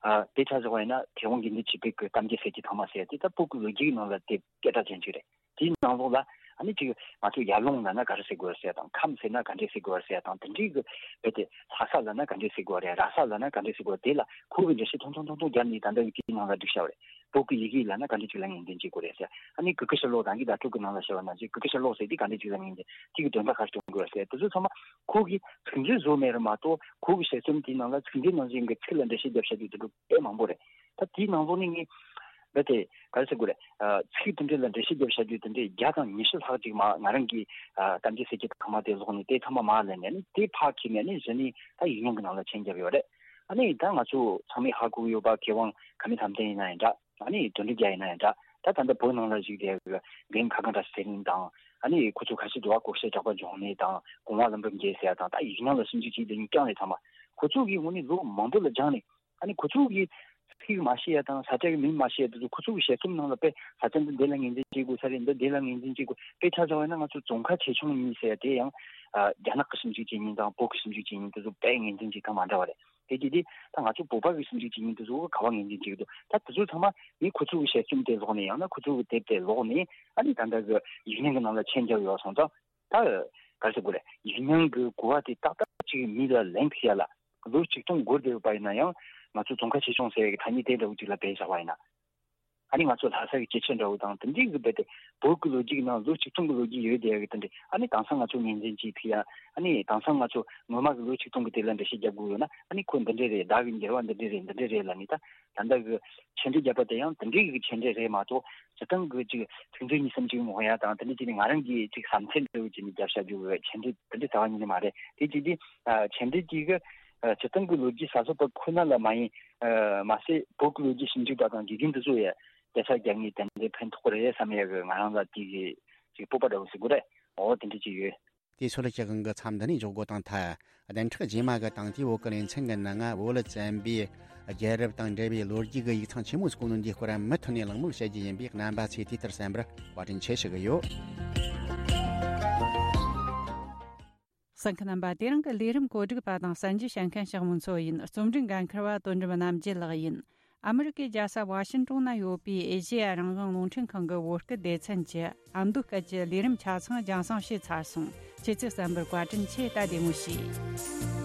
ཨ། དཔེ་ཆ་བཞག་པ་ཡིན་ན་མཁས་དབང་དགེ་འདུན་ཆོས་འཕེལ་གྱི་གཏམ་རྒྱུད་ཟེར་གྱི་ཐོག་མ་ཟེར་ཡ་དེ་ད་བོད་ཀྱི་ལོ་རྒྱུས་ཀྱི་ནང་ལ་དེབ་སྐད་གྲགས་ཅན་ཅིག་རེད། དེའི་ནང་ལོགས་ལ་ཨ་ནི་ཅིག་ང་ཚོ་ཡར་ཀླུང་ལབ་ན་ག་རེ་ཟེར་དགོས་རེད་ཟེར་ཡ་དང་། ཁམས་ཟེར་ན་ག་འདྲས་ཟེར་དགོས་རེད་ཟེར་ཡ་དང་། དེ་འདྲའི་གི་རྦད་དེ་ལྷ་ས་ལབ་ན་ག་འདྲས་ཟེར་དགོས་རེད། ར་ས་ལབ་ན་ག་འདྲས་ཟེར་དགོས་རེད། དེ་ལ་ཁོ་གི་འགྲེལ་བཤད་ཐུང་ཐུང་ཐུང་ཐུང་བརྒྱབ་ནས་ད་ལྟ་ཡི་གེའི་ནང་ལ་བསྒྲིགས་བཞག་པ་རེད། བོད་ཀྱི་ཡི་གེ་ལབ་ན་ག་འདྲས་ཅིག་ལ་ངོས་འཛིན་བྱེད་དགོས་རེད་ཟེར། ཨ་ནི་གུ་གེ་ཤྲ་ལོ་ཀ་དང་གི་བརྡ་སྤྲོད་ཀྱི་ནང་ལ་བཤད་པ་ནང་བཞིན་གུ་གེ་ཤྲ་ལོ་ཀ་ཟེར་དེ་ག་འདྲས་ཅིག་ལ་ངོས་འཛིན། དེ་གི་དོན་དག་ག་རེ་སྟོན་དགོས་རེད་ཟེར། དེ་ཚོ་ཚང་མ་ཁོ་གིས་ཚིག་མཛོད་བཟོས་མེད་རེད་མ་གཏོགས། ཁོ་གི་དཔྱད་རྩོམ་དེའི་ནང་ལ་ཚིག་མཛོད་ནང་བཞིན་གྱི་ཚིག་ལ་འགྲེལ་བཤད་རྒྱབ་བྱ་རྒྱུ་དེ་འདྲ་དཔེ་མང་པོ་རེད། ད་དེའི་ནང་ལོགས་ནས་ངས་རྦད་དེ་ག་རེ་ཟེར་དགོས་རེད། ཨ། ཚིག་དེ་འདྲ་ལ་འགྲེལ་བཤད་རྒྱབ་བྱ་རྒྱུ་དེ་འདྲ་བརྒྱ་དང་ཉི་ཤུ་ལྷག་ཅིག་མར་ང་རང་གིས། ཨ། གཏམ་རྒྱུད་ཟེར་གྱི་ཐོག་མ་དེ་ཀློག་ནས་དེ་ཚང་མ་མར་ལེན་ནས་ནི་དེ་ཕར་འཁྱེར་ནས་ནི་གཞི་ནས་ད་ཡིག་རྙིང་གི་ནང་ལ་མཆན་བརྒྱབ་ཡོད་རེད། ཨ་ནི་ད་ང་ཚོ་ཚང་མས་ཧ་གོ་གི་ཡོད་པ། མཁས་དབང་ཁ་མི་ཐམ་ཐན་ཡིན་ན་ཡང་འདྲ། ཨ་ནི་དོན་གྲུབ་རྒྱལ་ཡིན་ན་ཡང་འདྲ། ད་ད་ལྟ་བོད་ནང་ལ་བཞུགས་བསྡད་པའི་རྒན་ཁ་སྒང་བཀྲ་ཤིས་ཚེ་རིང་དང་། ཨ་ནི་ཁོ་ཚོ་ཁ་ཤས་འདུག་བ། སྐུ་ཞབས་གྲགས་པ་འབྱུང་གནས་དང་། གོང་མ་ལྷུན་པོ་རྒྱལ་ཟེར་ཡ་དང་། ད་ཡིག་རྙིང་ལ་ཞིབ་འཇུག་བྱེད་བསྡད་མཁན་རྐྱང་རེད་ཚང་མ། ཁོ་ཚོ་གིས་དངོས་གནས་ལོ་མང་པོ་ལ་སྦྱངས་ནས། ཨ་ནི་ཁོ་ཚོ་གིས་ཚིག་མ་ཤེས་ཡ་དང་ས་ཆ་གི་མིང་མ་ཤེས་ཡ་དེ་ཚོ་ཁོ་ཚོ་གི་དཔྱད་རྩོམ་ནང་ལ་དཔེ་ས་ཆ་འདི་འདི་ལ་ངོས་འཛིན་བྱེད་དགོས་ས་རེད། འདི་འདི་ལ་ངོས་འཛིན་བྱེད་དགོས། དཔེ་ཆ་བཞག་པ་ཡིན་ན་ང་ཚོ་ཙོང་ཁ་ཆེ་ཆུང་གཉིས་ཟེར་ཡ་དེ་ཡང་། ཨ། རྒྱ་ནག་གི་ཞིབ་འཇུག་བྱེད་མཁན་དང་བོད་ཀྱི་ཞིབ་འཇུག་བྱེད་མཁན་དེ་ཚོ་དཔེ་ངོས་འཛིན་བྱེད་སྟངས་མ་འདྲ་བ་རེད། དེ་གྱིས་དེ་ད་ང་ཚོ་བོད་པ་གི་ཞིབ་འཇུག་བྱེད་མཁན་དེ་ཚོ་ག་བ་ངོས་འཛིན་བྱེད་ཀྱི་འདུག་ད་དེ་ཚོ་ཚང་མ་ངས་ཁོ་ཚོ་གི་དཔྱད་རྩོམ་དེ་ཀློག་ནས། ཡང་ན་ཁོ་ཚོ་གི་དེབ་དེ་ཀློག་ནས། ཨ་ནི་ད་ལྟ་གི་ཡིག་རྙིང་གི་ནང་ལ་མཆན་རྒྱབ་ཡོད་སོང་ཙང་། ད་ག་རེ་ཟེར་དགོས་རེད། ཡིག་རྙིང་གི་གོ་བ་དེ་ཏག་ཏག་ཅིག་མི་ལ་ལེན་ཐུབ་ཡ་ལ་ལོ་ཆིག་སྟོང་འགོར་བསྡད་ཡོད་པ་ཡིན་ན་ཡང་། ང་ཚོ་ཙོང་ཁ་ཆེ་ཆུང་ཟེར་ཡ་གི་ཐ་སྙད་དེ་འདྲ་བོ་ཅིག་ལ་བེད་བཞག་པ་ཡིན་ན། ཨ་ནི་ང་ཚོ་ལྷ་ས་གི་སྐྱེས་ཆེན་འདྲ་བོ་དང་དེ་འདྲའི་གི་རྦད་དེ་བོད་ཀྱི་ལོ་རྒྱུས་ཀྱི་ནང་ལོ་ཆིག་སྟོང་གི་ལོ་རྒྱུས་ཡོད་བསྡད་ཡ་གི་དེ་འདྲ། ཨ་ནི་དེང་སང་ང་ཚོ་ངོས་འཛིན་བྱེད་ཐུབ་ཡ། ཨ་ནི་དེང་སང་ང་ཚོ་སྔོན་མ་གི་ལོ་ཆིག་སྟོང་གི་དེ་ལ་འགྲེལ་བཤད་རྒྱབ་དགོས་ཡོད་ན། ཨ་ནི་ཁོ་འདི་འདྲ་རེད། བརྡ་གི་འགྱུར་བ་འདི་འདྲ་རེད། འདི་འདྲ་རེད་ལབ་ནས། ད་ད་ལྟ་གི་མཆན་འགྲེལ་རྒྱབ་པ་དེ་ཡང་དེ་འདྲའི་གི་མཆན་འགྲེལ་རེད་མ་གཏོགས། སྤྱིར་བཏང་གི་ཅིག་ཚིག་མཛོད་གཉིས་གསུམ་ཅིག་ངོ་ཡ་དང་། དེ་འདྲ་ཅིག་ནི་ང་རང་གིས་ཅིག་བསམ་ཚུལ་འདྲ་བོ་ཅིག་ནི་རྒྱབ་བྱ་རྒྱུ་གི་མཆན་འགྲེལ་དེ་འདྲ་རྩ་བ་ཉིད་ནས་མ་རེད། དེ་ཅིག་དེ། ཨ། མཆན་འགྲེལ་དེ་གི། ཨ། སྤྱིར་བཏང་གི་ལོ་རྒྱུས་གསར་གསོ་པ་ཁོ་ན་ལ་མ་ཡིན། ཨ། མ་ཟད་བོད་ཀྱི་ལོ་རྒྱུས་ཞིབ་འཇུག་པ་དང་དགེ་རྒན་དེ་ཚོ་ཡ་སྐད་ཆ་རྒྱག་ནས་དེ་འདྲའི་ཕན་ཐོགས་རེད་བསམ་ཡ་གི་ང་རང་ལ་དེ་གི་ཅིག་སྤོབས་པ་འདྲ་བོ་ཟེར་དགོས་རེད། འོ་དེ་འདྲ་ཅིག་ཡོད། དེ་ཚོ་ལ་སྤྱི་ཁང་གི་མཚམས་འདི་ནས་འཇོག་སྒོ་དང་མཐའ། བདུན་ཕྲག་རྗེས་མ་གི་དང་དེའི་བོད་ཀྱི་ལེ་ཚན་གྱི་ནང་ང་བོད་བཙན་པོའི་རྒྱལ་རབས་དང་འབྲེལ་བའི་ལོ་རྒྱུས་ཀྱི་ཡིག་ཚང་ཆེན་མོ་ཟིག་གོ་ནོ་འདིའི་སྐོར་མུ་མཐུད་ནས་གླེང་མོལ་བྱེད་རྒྱུ་ཡིན་པས། རྣམ་པ་ཚོས་དུས་ལྟར་གསན་པར་བཀའ་དྲིན་ཆེ་ཞུ་གི་ཡོད། གསན་མཁན་རྣམ་པ། དེ་རིང་གི་ལས་རིམ་གོ་སྒྲིག་པ་དང་གསན་རྒྱུ་བྱེད་མཁན་ཞག་མོ་མཚོ་ཡིན། རྩོམ་སྒྲིག་འགན་འཁུར་བ་དོན་གྲུབ་རྣམ་རྒྱལ་ལགས་ཡིན། ཨ་མི་རི་ཀའི་རྒྱལ་ས་ཝ་ཤིན་ཀྲུང་ན་ཡོད་པའི་ཨེ་ཤེ་ཡ་རང་དབང་རླུང་འཕྲིན་ཁང་གི་བོད་སྐད་སྡེ་ཚན་གྱི་ཨ་མདོ་སྐད་ཀྱི་ལས་རིམ་ཆ་ཚང་རྒྱང་སྲིང་བྱས་ཚར་སོང་། ཁྱེད་ཚོས་གསན་པར་བཀའ་དྲིན་ཆེ། ད་བདེ་མོ་བྱོས།